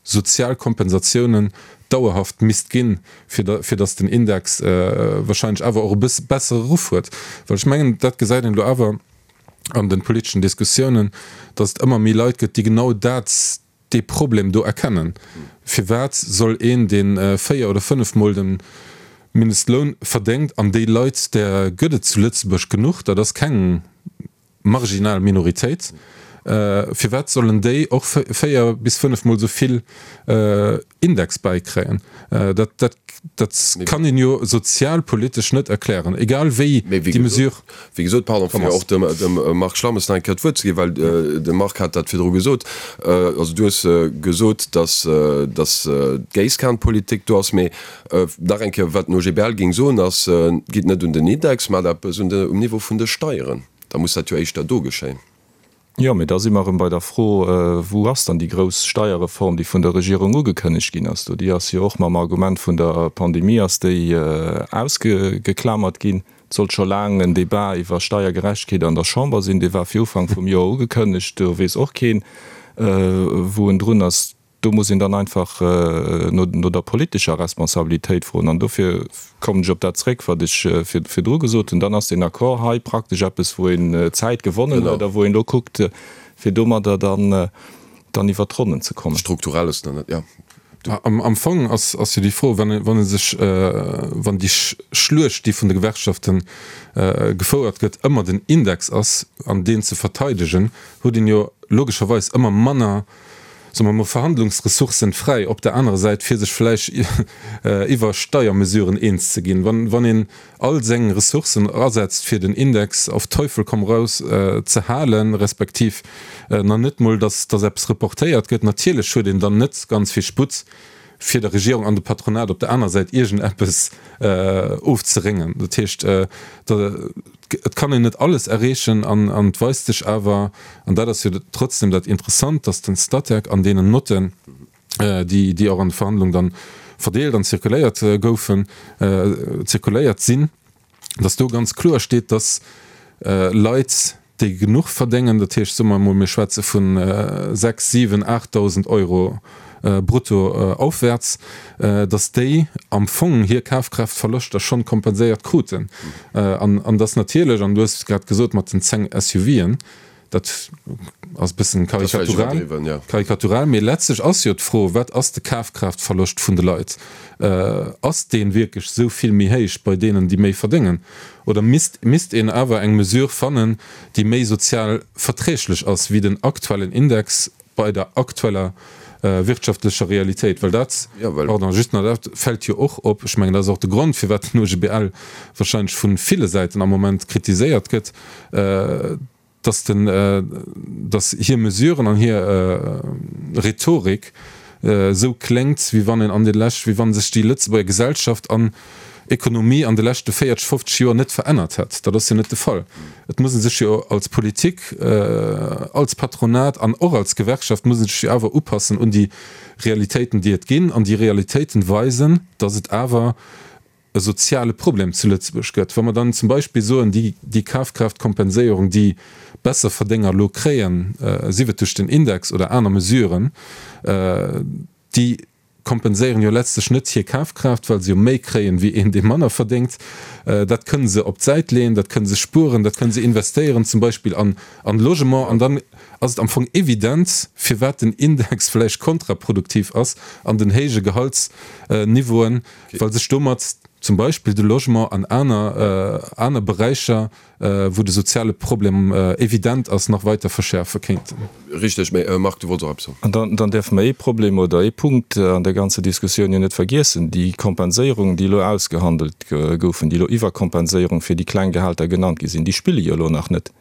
sozial Kompensatiounen dauerhaft misst ginn, fir fir datt den Index wahrscheinlech awer och e bësse bessere Ruff huet. Well ech mengen, dat gesäit een elo awer an de politeschen Diskussiounen, datt et ëmmer méi Leit gëtt, déi genau dat, dee Problem do erkennen. Firwat soll een, dee véier oder fënnefmol de Mindestloun verdéngt, an déi Leit, där gëtt et zu Lëtzebuerg genuch, dat ass keng marginal Minoritéit, firwat sollen déi och véier bis fënnefmol esou vill Index bäikréien? Dat, dat, dat kann een jo sozialpolitesch net erklären, egal wéi déi Mesure. Wéi gesot, pardon, fir och dem, dem Marc Schlammes nach eng Kéier d'Wuert ze ginn, well de Marc hat dat virdru gesot. Also du hues gesot, dass, dass d'Géisskanpolitik do ass, mee nach eng Kéier, wat den OGBL géing soen, ass, Gitt net un den Index, maacht eppes un de, um Niveau vun de Steieren. Da muss dat jo éischter do geschéien. Jo, mee da si mer erëm bei der Fro, Wou ass dann déi grouss Steierreform, déi vun der Regierung ugekënnegt ginn ass do? Déi ass jo och mam Argument vun der Pandemie ass déi ausgeklamert ginn. Et sollt scho laang en Débat iwwer Steiergerechtegkeet an der Chamber sinn. Dee war fir Ufank vum Joer ugekënnegt. Do weess och keen, wou en drun ass. Do muss een dann einfach no der politescher Responsabilitéit froen. An dofir kommen ech op dat zréck, wat ech virdru gesot hunn. Dann ass deen Accord hei praktesch eppes, wou een Zäit gewonnen huet a wou een elo kuckt, fir domadder dann iwwert d'Ronnen ze kommen. Strukturell ass dann net, jo. Am Fong ass jo déi Fro, wann ee sech, wann déi Schluecht, déi vun de Gewerkschafte gefouert gëtt, ëmmer den Index ass an deen ze verteidegen, huet een jo logescherweis ëmmer manner. Soe mer mol, Verhandlungsressourcen fräi op der anerer Säit, fir sech vläicht iwwer Steiermesuren eens ze ginn. Wann een all seng Ressourcen asetzt, fir den Index auf Teufel komm raus ze halen, respektiv nach net mol, datt eppes reportéiert gëtt, natierlech huet een dann net ganz vill Sputt, fir der Regierung an dem Patronat op der aner Säit iergendeppes ofzeréngen. Dat heescht, et kann een net alles erreechen an et weist sech awer, an dat ass jo trotzdem dat Interessant, datt den Statec an deenen Notten, déi och an de Verhandlungen dann verdeelt an zirkuléiert goufen, zirkuléiert sinn, dass do ganz kloer steet, dass Leit, déi genuch verdéngen, dat heescht, soe mer emol, mir schwätze vu 6, 7, 8.000 Euro brutto aufwärts, dass déi am Fong hir Kafkraaftverloschter schonn kompenséiert kruten. An dass natierlech, an du hues et grad gesot mat den 10 SUVen, Dat ass e bëssen karikatural, karikatural, mee letztlech ass jo d'Fro, Wat ass de Kafkraaftverloscht vun de Leit? Ass dee wierklech esou vill méi héich bei deenen, déi méi verdéngen? Oder misst, misst een awer eng Mesure fannen, déi méi sozial verträglech ass wéi den aktuellen Index bei der aktueller wirtschaftlecher Realitéit? Well dat, pardon, just nach, dat fält jo och op, ech mengen, dat ass och de Grond, firwat den OGBL wahrscheinlech vu ville Säiten am Moment kritiséiert gëtt, dass den, dass hir Mesuren an hir Rhetorik esou kléngt, wéi wann een an de lescht, wéi wann sech déi Lëtzebuerger Gesellschaft an Ekonomie an de leschte 40, 50 Joer net verännert hätt. Dat ass jo net de Fall. Et muss ee sech jo als Politik, als Patronat an och als Gewerkschaft muss ee sech jo awer upassen un déi Realitéiten, déi et ginn. An déi Realitéiten weisen, dass et awer e soziale Problem zu Lëtzebuerg gëtt. Wa mer dann zum Beispill soen, déi, déi Kafkraaftkompenséierung, déi Besserverdénger elo kréien, sief et duerch den Index oder aner Mesuren, déi kompenséieren jo letztlech net hir Kafkraaft, well se jo méi kréien, wéi een, dee manner verdéngt. Dat kënne se op d'Säit leeën, dat kënne se spueren, dat kënne se investéieren, zum Beispill an, an Logement. An dann ass et am Fong evident, firwat den Index vläicht kontraproduktiv ass an den héije Gehaltsniveauen, well sech domat zum Beispill de Logement an aner aner Beräicher, wou de soziale Problem evident ass, nach weiter verschäerfe kéinten. Richteg. Mä Marc, du wollts och eppes soen. An dann däerfe mer ee Problem oder ee Punkt an der ganzer Diskussioun jo net vergiessen, Déi Kompenséierungen, déi elo ausgehandelt goufen, déi elo Iwwerkompenséierung fir déi kleng Gehälter genannt gi sinn, déi spille jo elo nach net.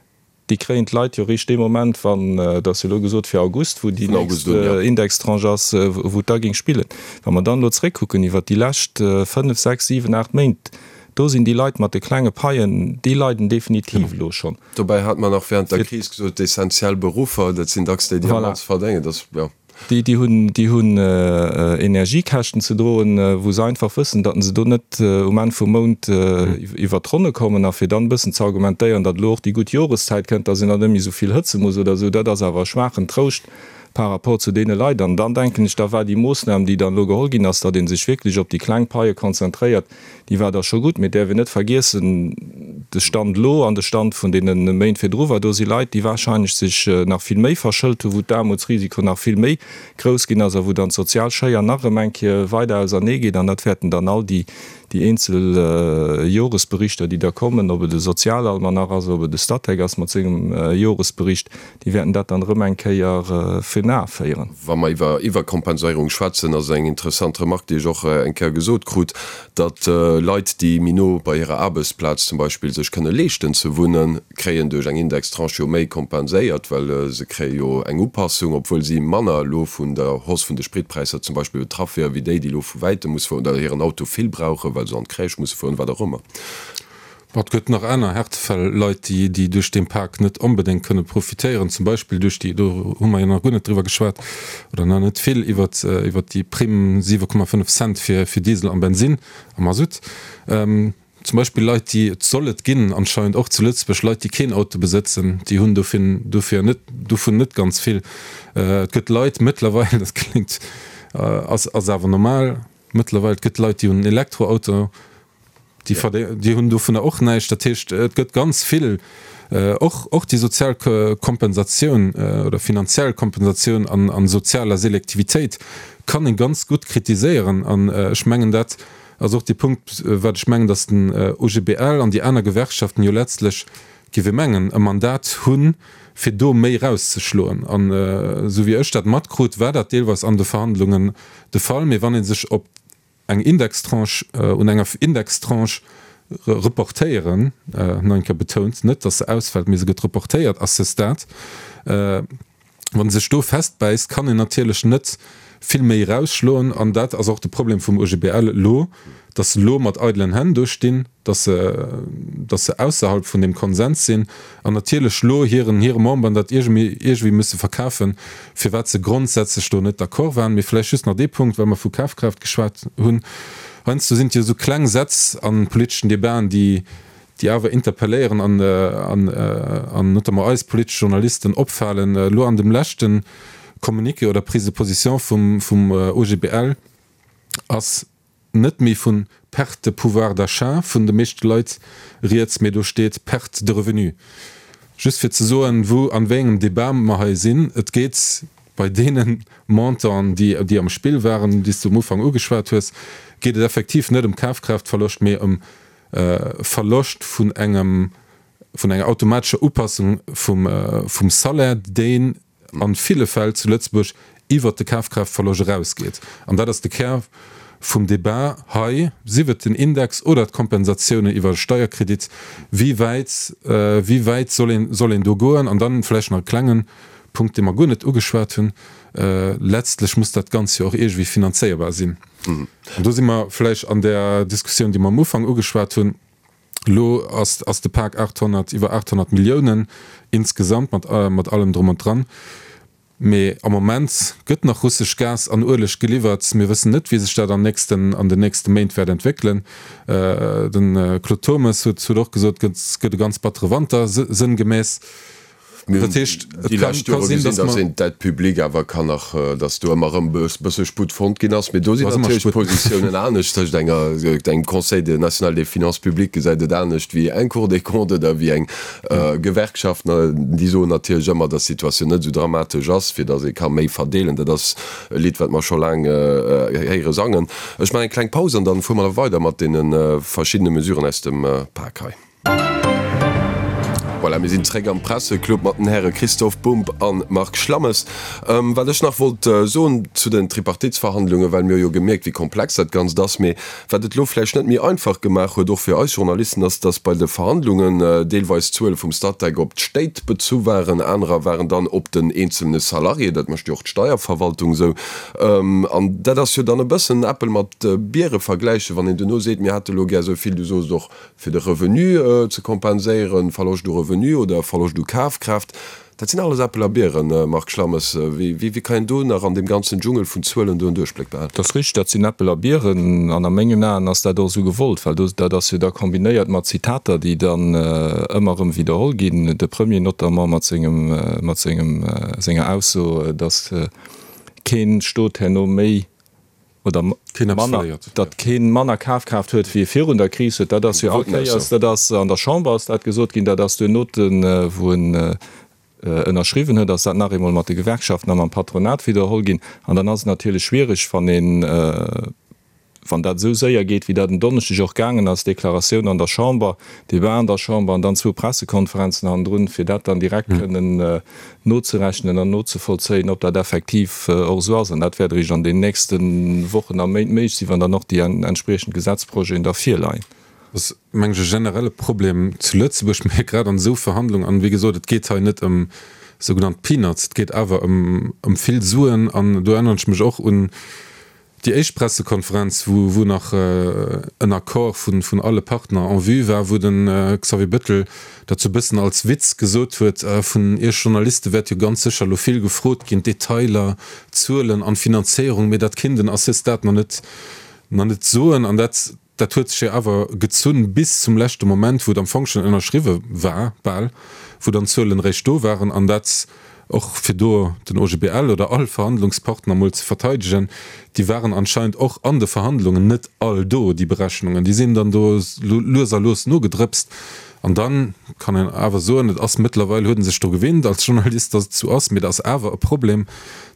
Déi kréien d'Leit jo eréischt dee Moment, wann, et ass jo elo gesot fir August, wou déi nächst Indextranche ass, wou et da géing spillen. Wa mer dann elo zréckkucken iwwert déi lescht 5, 6, 7, 8 Méint, do sinn déi Leit mat de klenge Paien, déi leiden definitiv elo schonn. Dobäi hat mer nach während der Kris gesot, d'essentiell Beruffer, dat sinn dacks déi, déi am mannste verdéngen. Dat ass, jo. Déi, déi hunn, déi hunn Energiekäschten ze droen, wou se einfach wëssen, datt se do net um Enn vum Mount iwwert d'Ronne kommen. A fir dann e bëssen ze argumentéieren, datt elo och déi gutt Joreszäit kënnt, datt een dann net méi esou vill hëtze muss oder esou, dat ass awer e schwaachen Trouscht par rapport zu deene Leit. An dann denken ech, da war déi Moossnam, déi dann elo geholl ginn ass, datt ee sech wierklech op déi kleng Paie konzentréiert, Déi war da scho gutt, mee et däerf een net vergiessen, de Stand elo an de Stand vun deene Méint virdru war, do si Leit, déi wahrscheinlech sech nach vill méi verschëlt hunn, wou d'Aarmutsrisiko nach vill méi grouss ginn ass a wou dann d'sozial Schéier nach erëm eng Kéier weider ausernee geet. An dat wäerten dann all déi eenzel Joresberichter, déi da kommen, ob et e Sozialalmanach ass, ob et e Statec ass mat sengem Joresbericht, Déi wäerten dat dann erëm eng Kéier virun Ae féieren. Wa mer iwwer Iwwerkompenséierung schwätzen, ass eng interessant Remarque, déi ech och eng Kéier gesot krut, datt Leit, déi méi no bei hirer Aarbechtsplaz zum Beispill sech kënne leeschten ze wunnen, kréien duerch eng Indextranche jo méi kompenséiert, well se kréie jo eng Upassung, obwuel si manner elo vun der Hausse vun de Spritpräisser zum Beispill betraff wieren, wéi déi, déi elo vu wäitem musse fueren oder hiren Auto vill brauchen, well se an d'Crèche musse fueren, wat och ëmmer. Bon, et gëtt nach aner Härtefäll, Leit, déi, déi duerch dee Pak net onbedéngt kënne profitéieren, zum Beispill duerch déi, do hu mer jo nach guer net driwwer geschwat oder nach net vill, iwwert, iwwert déi Primm 7,5 Cent fir, fir Diesel an Bensinn a Masutt. Zum Beispill Leit, déi, et soll et ginn anscheinend och zu Lëtzebuerg, Leit, déi keen Auto besëtzen, déi hunn dofir, dofir net, dovun net ganz vill. Et gëtt Leit mëttlerweil, dat kléngt, ass, ass awer normal mëttlerweil, et gëtt Leit, déi hunn en Elektroauto, Déi verdé, déi hunn dovunner och näischt. Dat heescht, et gëtt ganz vill, och, och déi sozial Kompensatioun oder finanziell Kompensatioun an, an sozialer Selektivitéit kann ee ganz gutt kritiséieren. An ech mengen, dat ass och dee Punkt, wat ech mengen, datt den OGBL an déi aner Gewerkschaften jo letztlech. Géif ee mengen, e Mandat hunn, fir do méi erauszeschloen. An esou wéi ech dat matkrut, war dat deelweis an de Verhandlungen de Fall. Mee wann ee sech op eng Indextranche, un enger Indextranche reportéieren, nach eng Kéier betount, net datt se ausfält, mee se gëtt reportéiert à ce stade, Wann e sech do festbäisst, kann een natierlech net vill méi erausschloen. An dat ass och de Problem vum OGBL elo, datt se elo mat eidelen Hänn do stinn, datt se, datt se ausserhalb vun deem Konsens sinn an natierlech elo hiren, hire Memberen dat iergendwéi, iergendwéi musse verkafen, firwat se grondsätzlech do net d'accord waren. Mee vläicht just nach dee Punkt, well mer vu Kafkraaft geschwat hunn, Heiansdo sinn et jo esou kleng Sätz a politeschen Debaten, déi, déi awer interpelléieren an an notamment eis politesch Journalisten opfalen. Elo an dem leschte Communiqué oder Prise de position vum vum OGBL ass net méi vu Perte de pouvoir d'achat vun de meeschte Leit rieds, mee do steet Perte de revenu. Just fir ze soen, wou an wéi engem Débat mer hei sinn. Et geet bei deene Montanten, déi déi am Spill waren, déi s de um Ufank ugeschwat hues, geet et effektiv net ëm Kafkraaftverloscht, mee ëm Verloscht vun engem, vun enger automatescher Upassung vum, vum Salaire, deen a ville Fäll zu Lëtzebuerg iwwert de Kafkraaftverloscht erausgeet. An dat ass de Kär vum Débat hei, sief et den Index oder d'Kompensatiounen iwwer e Steierkredit, wéi wäit, wéi wäit soll een, soll een do goen? An dann vläicht nach e klengen Punkt, dee mer guer net ugeschwat hunn, Letztlech muss dat Ganzt jo och iergendwéi finanzéierbar sinn. An do si mer vläicht an där Diskussioun, déi mer am Ufank ugeschwat hunn. Elo ass, ass de Pak 800, iwwer 800 Milliounen insgesamt mat, mat allem drum und dran. Mee am Moment gëtt nach russesch Gas an Ueleg geliwwert. Mir wëssen net, wéi sech dat an nächsten, an den nächste Méint wäert entwéckelen. De Claude Turmes huet, huet och gesot, et gëtt e ganz battere Wanter, sënngemäss. Mir hunn déi lescht Jore gesinn, datt een d'Dette publique awer kann nach, datt do ëmmer erëm e bësse Sputt fonnt ginn ass. Mee do sinn natierlech d'Positiounen anescht. Tëscht enger, engem Conseil national des finances publiques gesäit et anescht wéi eng Cour des comptes oder wéi eng Gewerkschaft. Déi soen natierlech ëmmer, datt d'Situatioun net esou dramatesch ass, fir datt ee ka méi verdeelen. Dat ass e Lidd, wat mer scho laang héiere sangen. Ech maachen eng kleng Paus an dann fuere mer da weider mat deene verschiddene Mesuren aus dem Pak hei. Voilà, mir sinn zréck am Presseclub mat den Häre Christoph Bumb a Marc Schlammes. Wat ech nach wollt soen zu den Tripartitsverhandlungen, well mir hu jo gemierkt, wéi komplex dat Ganzt ass, mee wat et elo vläicht net méi einfach gemaach huet, och fir eis Journalisten, ass, dass bei de Verhandlungen deelweis d'Zuele vum Statec op d'Stéit bezu waren, anerer waren dann op den eenzelne Salarié, dat mécht jo och d'Steierverwaltung esou. An dat ass jo dann e bëssen Äppel mat Biere vergläichen, wann een duerno seet, mir hätte elo gär esou vill, du soos och, fir de Revenu ze kompenséieren, Verloscht u Revenu oder Verloscht u Kafkraaft, dat sinn alles Äppel a Bieren, Marc Schlammes. Wéi kann een do nach an deem ganzen Dschungel vun Zuelen do en Duerchbléck behalen? Dat ass richteg, dat sinn Äppel a Bieren. An a mengen Aen ass dat och esou gewollt, well do, dat ass jo da kombinéiert mat Zitater, déi dann ëmmer erëm widderholl ginn, de Premier notamment mat sengem, mat sengem, senger Ausso, datt kee Stot herno méi oder manner, datt kee manner Kafkraaft huet wéi e virun der Kris huet, dat ass jo all Kéiers, dat ass an der Chamber ass dat gesot ginn, dat ass duerno, wou en ënnerschriwwen huet, ass dat nach eemol mat de Gewerkschaften a mam Patronat widderholl ginn. An dann ass et natierlech schwierig, wann een, wann dat esou séier geet, wéi dat en Donneschdeg och gaangen ass, Deklaratioun an der Chamber, Debat an der Chamber an dann zwou Pressekonferenzen hannendrun, fir dat dann direkt kënnen nozerechnen an nozevollzéien, ob dat effektiv och esou ass. An dat wäert eréischt an den nächste Wochen a Méint méiglech sinn, wann dann och déi entspriechend Gesetzprojeten da virleien. Dat ass, meng ech, e generelle Problem zu Lëtzebuerg, mä grad an esou Verhandlungen, an wéi gesot, et geet hei net ëm sougenannt Peanuts, et geet awer ëm vill Suen. An do erënneren ech mech och un Déi éischt Pressekonferenz, wou wou nach en Accord vun vun alle Partner en vue war, wou de Xavier Bettel dat sou bëssen als Witz gesot huet, Vun Iech Journaliste wäert jo ganz sécher elo vill gefrot ginn, Detailer, Zuelen an Finanzéierung, mee dat kinnt en à ce stade nach net nach net soen. An dat dat huet sech jo awer gezunn bis zum leschte Moment, wou et am Fong schonn ënnerschriwwe war, bal, wou dann d'Zuelen eréischt do waren. An dat och fir do den OGBL oder all Verhandlungspartner mol ze verteidegen, déi waren anscheinend och an de Verhandlungen net all do, déi Berechnungen, déi sinn dann do lues a lues nogedrëpst. An da kann een awer soen, et ass mëttlerweil, huet e sech dru gewinnt als Journalist, datt et esou ass, mee et ass awer e Problem,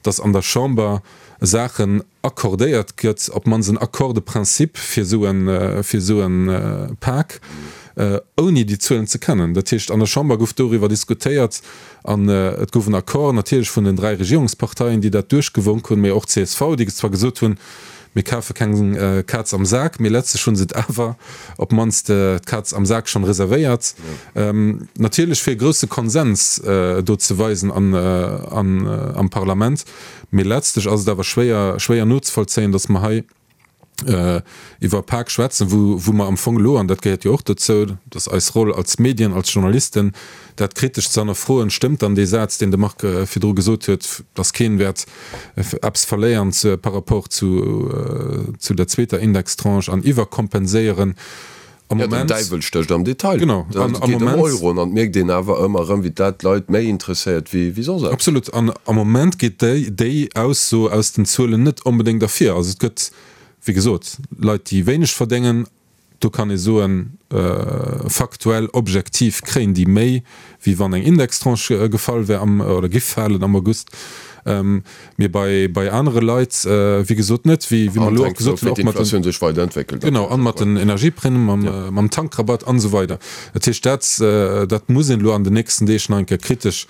datt an der Chamber Saachen accordéiert gëtt, op d'mannst en Accord de principe fir esou e, fir esou e Pak. ouni déi Zuelen ze kennen. Dat heescht, an der Chamber gouf doriwwer diskutéiert an et gouf en Accord natierlech vun den 3 Regierungsparteien, déi dat duerchgewonk hunn, mee och csv, déi zwar gesot hunn, mir kafe keng Kaz am Sak, mee letztlech hu se et awer op d'mannst d'Kaz am Sak schonn reservéiert. Natierlech fir e grousse Konsens do ze weisen am Parlament, mee letztlech ass et awer schwéier, schwéier nozevollzéien, datt mer hei iwwer e Pak schwätzen, wou mer am Fong elo, an dat gehéiert jo och dozou, dat ass eis Roll als Medien, als Journalisten, dat kritesch ze hannerfroen, stëmmt dann dee Saz, deen de Marc virdru gesot huet, dass keen wäert eppes verléieren par rapport zu der zweeter Indextranche an iwwerkompenséieren am Moment. Jo, den Däiwel stécht am Detail. Genau. Et geet ëm Euroen an et mierkt een awer ëmmer erëm, wéi dat d'Leit méi interesséiert wéi soss eppes. Absolut. An am Moment geet déi Ausso aus den Zuelen net onbedéngt ervir. Also et gëtt, wéi gesot, Leit, déi wéineg verdéngen, Do kann ee soen, faktuell, objektiv kréien déi méi, wéi wann eng Indextranche gefall wär am, oder giff falen am August. Mee bei, bei anere Leit, wéi gesot, net, wéi, wéi mer elo och gesot hunn, och mat den, sech weiderentwéckelt. Genau, an mat den Energieprimen, mam, mam Tankrabatt an esou weider. Dat heescht, dat, dat muss een elo an den nächsten Deeg nach eng Kéier kritesch,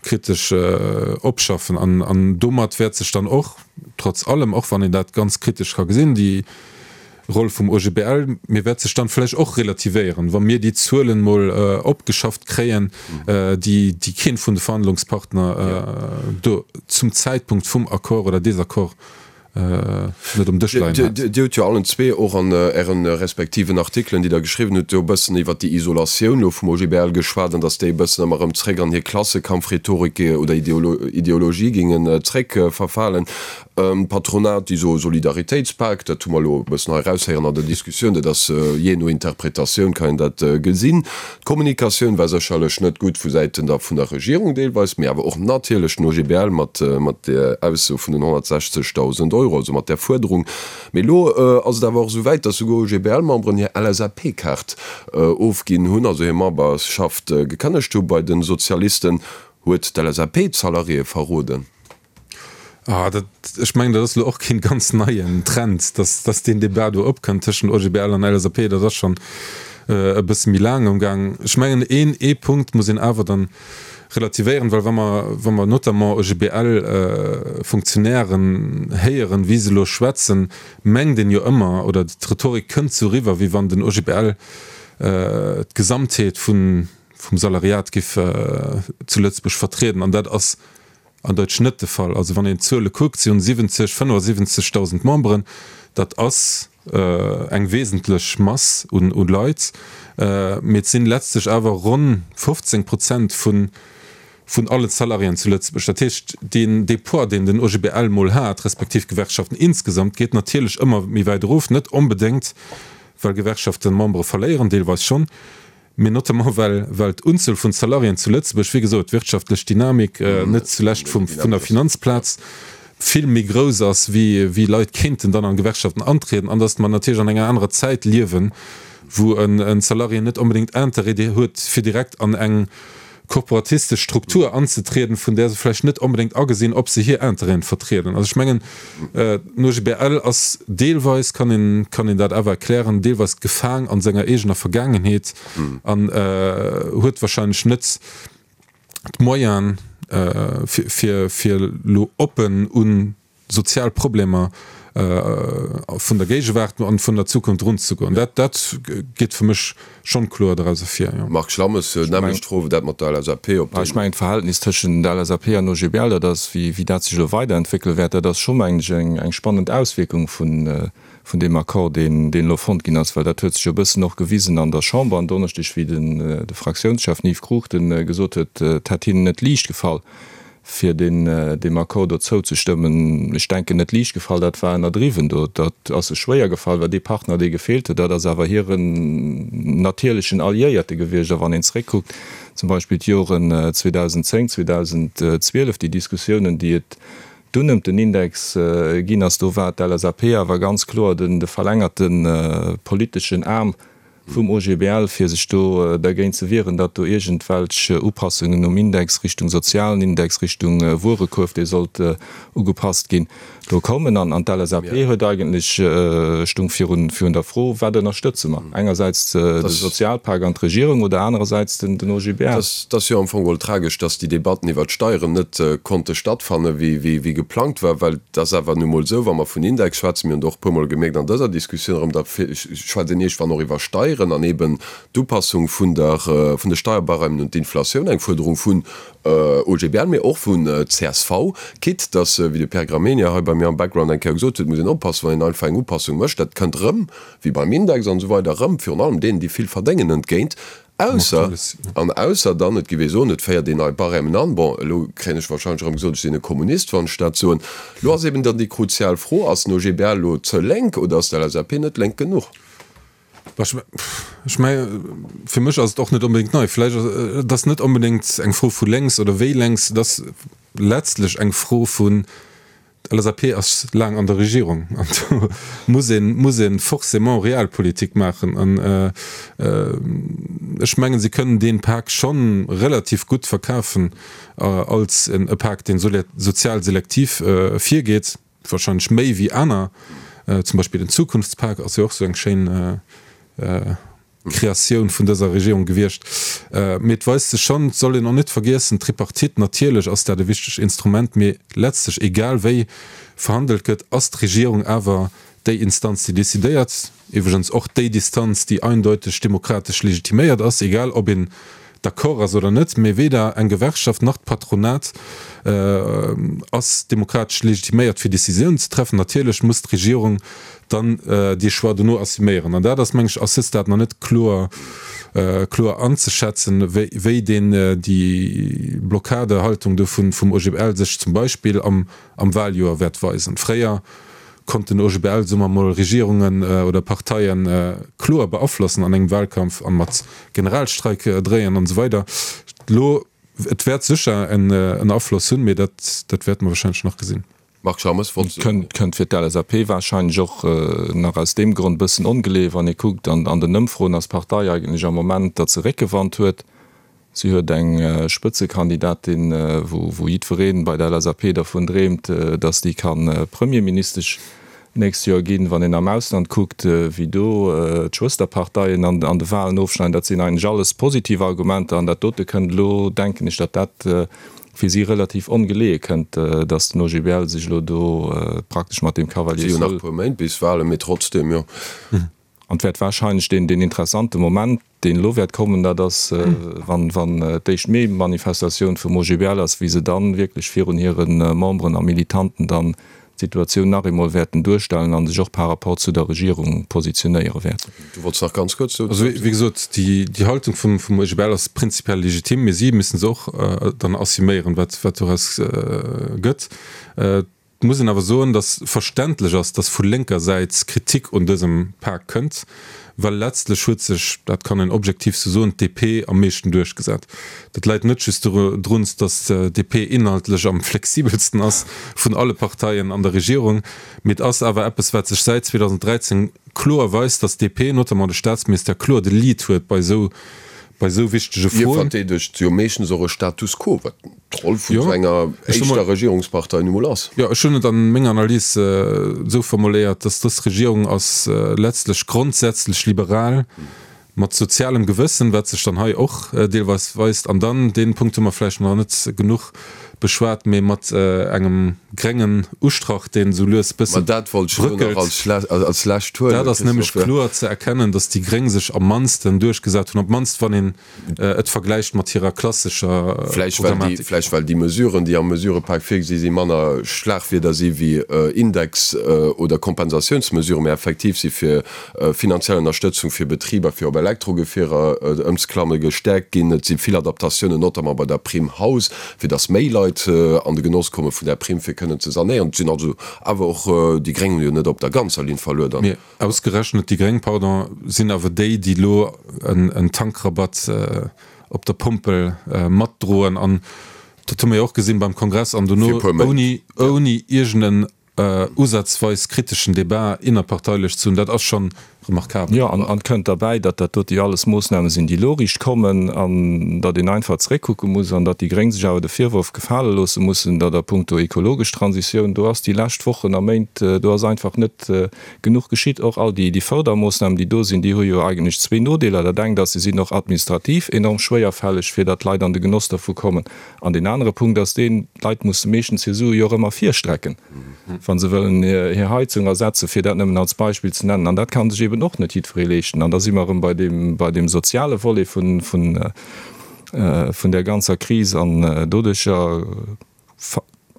kritesch opschaffen. An, an domat wäert sech dann och, trotz allem, och wann een dat ganz kritesch ka gesinn, déi, Roll vum OGBL, mee wäert sech dann vläicht och relativéieren, wa mir déi Zuelen mol opgeschafft kréien, déi déi keen vun de Verhandlungspartner do zum Zäitpunkt vum Accord oder Désaccord net um Dësch leien hat. Dir hutt jo allen zwee och an Ären respektiven Artikelen, déi Der geschriwwen hutt, jo e bëssen iwwert déi Isolatioun elo vum OGBL geschwat an datt déi e bëssen ëmmer erëm zréck an hir Klassekampfrhetorik oder Ideologie gingen zréckverfalen. D'Patronat, déi soe Solidaritéitspak, dat hu mer elo e bëssen hei eraushéieren an der Diskussioun, dat ass jee no Interpretatioun kann een dat gesinn. D'Kommunikatioun war sécherlech net gutt vu Säiten der vun der Regierung deelweis, mee awer och natierlech den OGBL mat mat där Ausso vun den 160.000 Euro, also mat där Fuerderung. Mee elo ass et awer och esou wäit, datt souguer OGBL-Memberen hir LSAP-Kaart ofginn hunn, also hir Memberschaft gekënnegt hu bei de Sozialisten. Huet d'LSAP d'Salariéë verroden? Ah, dat, ech mengen, dat ass elo och keen ganz neien Trend, dass, dass deen Debat do opkënnt tëschent OGBL an LSAP. Dat ass schonn e bësse méi laang am Gaang. Ech mengen, een, ee Punkt muss een awer dann relativéieren, well wa mer, wa mer notamment OGBL-Fonctionnairen héieren, wéi se elo schwätzen, mengt een jo ëmmer, oder d'Rhetorik kënnt sou eriwwer, wéi wann den OGBL d'Gesamtheet vun, vum Salariat giff zu Lëtzebuerg vertrieden. An dat ass An Deutsch net de Fall. Also wann een d'Zuele kuckt, si hunn 70, 75.000 Memberen, dat ass eng wesentlech Mass un Leit, mee et sinn letztlech awer ronn 15 Prozent vun allen Salariéen zu Lëtzebuerg. Dat heescht, deen dee Poids, deen den OGBL mol hat, respektiv d'Gewerkschaften insgesamt, geet natierlech ëmmer méi wäit erof, net onbedéngt well Gewerkschaften Membere verléieren, deelweis schonn, Mee notamment well well d'Unzuel vun Salariéen zu Lëtzebuerg, wéi gesot, d'wirtschaftlech Dynamik, net zulescht vum vun der Finanzplaz, vill méi grouss ass, wéi wéi Leit kéinten dann an Gewerkschaften antrieden, an datt mer natierlech an enger anerer Zäit liewen, wou en Salarié net onbedéngt Interêt huet, fir direkt an eng korporatistesch Struktur anzetrieden, vun där se vläicht net onbedéngt agesinn, ob se hir Interêten vertrieden. Also ech mengen, den OGBL ass deelweis, kann een, kann een dat awer erklären, deelweis gefaang an senger eegener Vergaangenheet an huet wahrscheinlech net d'Moyenen, fir, fir elo oppen un sozial Problemer vun der Géigewaart an vun der Zukunft erunzegoen. Dat, dat geet fir mech schonn kloer doraus ervir, jo. Marc Schlammes, Nämmlecht Fro wéi dat mat der LSAP, ob déi. Ech mengen, d'Verhältnis tëschent der LSAP an OGBL, dat ass, wéi, wéi dat sech elo weiderentwéckele wäert, dat ass scho, mengen ech, eng, eng spannend Auswierkung vun, vun deem Accord, deen, deen elo fonnt ginn ass, well dat huet sech jo e bëssen och gewisen an der Chamber en Donneschdeg, wéi den, de Fraktiounschef, den Yves Cruchten, gesot huet, et hätt hinnen net liicht gefall, fir deem Accord do zouzestëmmen. Ech denken, net liicht gefall, dat war ënnerdriwwen do. Dat ass sech schwéier gefall, well dee Partner, dee gefeelt huet, dat ass awer hiren natierlechen Alliéierte gewiescht. A wann een zréckkuckt, zum Beispill d'Joren 2010, 2012, déi Diskussiounen, déi et dunn ëm den Index ginn ass, do war d'LSAP awer ganz kloer de verlängerte politeschen Aarm. Vum OGBL, fir sech do dergéint ze wieren, datt do iergendwelch Upassungen um Index Richtung sozialen Index, Richtung Wuerekuerf, dee sollt ugepasst ginn, do kommen. An d'LSAP huet eigentlech, stung virun der Fro, Wat ënnerstëtze mer? Engersäits de Sozialpak an d'Regierung oder anerersäits den OGBL? Et ass jo am Fong geholl tragesch, datt déi Debatten iwwert d'Steieren net konnte stattfanne wéi geplangt war, well et ass awer nu mol esou, wa mer vun Index schwätzen, mir hunn et och e puermol gemierkt an dëser Diskussioun erëm, da schwätzt een iergendwann och iwwer Steieren an eben d'Upassung vun der, vun de Steierbarèmen un d'Inflatioun, eng Fuerderung vun OGBL, mee och vun csv, quitte dass, wéi de Pierre Gramegna hei bei mir am Background eng Kéier gesot huet, muss een oppassen, wann een einfach eng Upassung mécht, dat kënnt erëm, wéi beim Index an esou weider, erëm virun allem deenen, déi vill verdéngen, entgéint. Ausser, an ausser dann, et géif ee soen, et féiert een nei Barèmen an. Bon, elo kréien ech wahrscheinlech erëm gesot, ech sinn e Kommunist, wann ech dat soen. Elo ass eben dann déi kruzial Fro, Ass den OGBL elo ze lénk oder ass d'LSAP net lénk genuch? Ech menge fir mech ass et och net onbedéngt nei. Vläicht ass, et ass net onbedéngt eng Fro vu lénks oder wéi lénks, et ass letztlech eng Fro vun, D'LSAP ass laang an der Regierung an do muss een, muss ee forcément Realpolitik maachen. An ech mengen, si kënnen dee Pak scho relativ gutt verkafen als e Pak, dee sozial selektiv virgeet, wahrscheinlech méi wéi aner. Zum Beispill den Zukunftspak ass jo och esou eng schéin Kreatioun vun dëser Regierung gewiescht. Mee et weist sech schonn, et soll een och net vergiessen, d'Tripartite, natierlech ass dat e wichtegt Instrument, mee letztlech, egal wéi verhandelt gëtt, ass d'Regierung awer déi Instanz, déi decidéiert, iwwregens och déi Distanz, déi eindeuteg demokratesch legitiméiert ass, egal ob een d'accord ass oder net. Mee weder eng Gewerkschaft nach d'Patronat ass demokratesch legitiméiert, fir Décisiounen ze treffen. Natierlech muss d'Regierung dann dee Choix dono assuméieren. An dat ass, meng ech, à ce stade nach net kloer, kloer anzeschätzen, wéi deen, déi Blockadehaltung do vum OGBL sech zum Beispill am, am Wahljoer wäert weisen. Fréier konnt den OGBL, soe mer mol, Regierungen oder Parteie kloer beaflossen an engem Wahlkampf a mat Generalstreik dréien an esou weider. Elo, et wäert sécher en Afloss hunn, mee dat, dat wäerte mer wahrscheinlech nach gesinn. Marc Schammes, wollt. Kënnt fir d'LSAP wahrscheinlech och nach aus deem Grond e bëssen ongeleeë, wann ee kuckt an den Ëmfroen ass d'Partei eigentlech am Moment, datt se Réckewand huet. Si huet eng Spëtzekandidatin, wou jiddweree bei der LSAP dervun dreemt, datt déi ka Premierministesch d'nächst Joer ginn. Wann een am Ausland kuckt, wéi do d'Schwësterparteien an de Wahlen ofschneiden, dat sinn eigentlech alles positiv Argumenter. An dat dote kënnt elo, denken ech, datt dat fir si relativ ongeleeë kënnt, datt den OGBL sech elo do praktesch mat deem Cavalier seul. Et si jo nach e puer Méint bis Wahlen, mee trotzdem, jo. An et wäert wahrscheinlech deen, deen interessante Moment, deen elo wäert kommen, dat ass, wann, wann d'éischt Mee-Manifestatioun vum OGBL ass, wéi se dann wierklech virun hire Memberen a Militanten dann d'Situatioun nach eemol wäerten duerstellen a sech och par rapport zu der Regierung positionéiere wäerten. Du wollts nach ganz kuerz dozou. Also, wéi gesot, déi, déi Haltung vum, vum OGBL ass prinzipiell legitim, mee si müssen se och dann assuméieren, wat, wat doraus gëtt. Et muss een awer soen, datt verständlech ass, datt vu lénker Säit Kritik un dësem Pak kënnt, well letztlech huet sech, dat kann een objektiv sou soen, d'DP am meeschten duerchgesat. Dat läit net just drun, datt d'DP inhaltlech am flexibelsten ass vun alle Parteien an der Regierung, mee et ass awer eppes, wat sech säit 2013 kloer weist, datt d'DP, notamment de Staatsministère, kloer de Lead huet bei esou bei esou wichtege Hie Froen. verdeedegt jo meeschtens och e Status quo, wat d'Roll vun esou enger éischter Regierungspartei nu mol ass. Jo, ech hunn et a menger Analys esou formuléiert, datt dës Regierung ass letztlech grondsätzlech liberal, mat sozialem Gewëssen, wat sech dann hei och deelweis weist, an dann, dee Punkt hu mer vläicht nach net genuch beschwat, mee mat engem gréngen Ustrach, deen esou lues e bësse Ma dat wollt ech elo nach als lescht huelen, Dat ass nämlech kloer ze erkennen, datt déi Gréng sech am mannsten duerchgesat hunn, op d'mannst wann een et vergläicht mat hirer klassescher Programmatik. Vläicht well déi Mesuren, déi am Mesurepak virgesi sinn, manner Schlagwierder si wéi Index oder Kompensatiounsmesuren, mä effektiv si fir finanziell Ënnerstëtzung fir Betriber, fir op Elektrogefierer ëmzeklamme gestäerkt ginn. Et si vill Adaptatiounen, notamment bei der Prime Haus, fir datt méi Leit an de Genoss komme vun där Primm, fir kënnen ze sanéieren. Et sinn also awer och déi Gréng hunn jo net op der ganzer Linn verluer dann. Mee ausgerechnet déi Gréng, pardon, sinn awer déi, déi elo en Tankrabatt op der Pompel matdroen. An dat hu mer jo och gesinn beim Kongress an dono ouni, ouni iergend en usazweis kriteschen Debat innerparteilech ze hunn, dat ass scho Remarkabel. Jo, an et kënnt derbäi, datt dat dote jo alles Moossname sinn, déi elo riicht kommen, an datt een einfach zeréckkucke muss an datt déi Gréng sech awer de Virworf gefale loosse mussen, datt a puncto ekologesch Transitioun, do ass déi lescht Wochen a Méint, do ass einfach net genuch geschitt. Och all déi Fördermoossnamen, déi do sinn, déi hu jo eigentlech zwee Nodeeler. Dat engt ass, se sinn och administrativ enorm schwéierfälleg, fir datt d'Leit an de Genoss dervu kommen. An deen anere Punkt ass deen, d'Leit musse meeschtens hir Sue jo och ëmmer virstrecken, wa se wëllen hir Heizung ersetzen, fir dat nëmmen als Beispill ze nennen. An dat ka sech eben och net jiddweree leeschten. An da si mer erëm bei deem, bei deem soziale Volet vun, vun, vun där ganzer Kris. An doduercher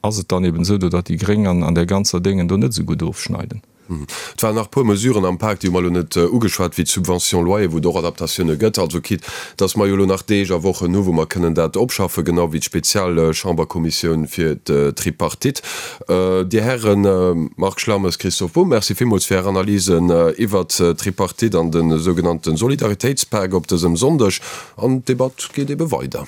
ass et dann eben esou, datt déi Gréng an, an där ganzer Déngen do net esou gutt ofschneiden. Et waren nach e puer Mesuren am Pak, déi hu mer elo net ugeschwat, wéi d'Subvention loyer, wou et och Adaptatioune gëtt. Also quitte dass mer jo elo nach Deeg a Wochen hu wou mer kënnen dat opschaffen, genau wéi d'Spezialchamberkommissioun fir d'Tripartite. Dir Hären, Marc Schlammes, Christophe Bumb, Merci villmools fir Är Analysen iwwert d'Tripartite an de sougenannte Solidaritéitspak op dësem Sonndeg. An d'Debatt geet ebe weider.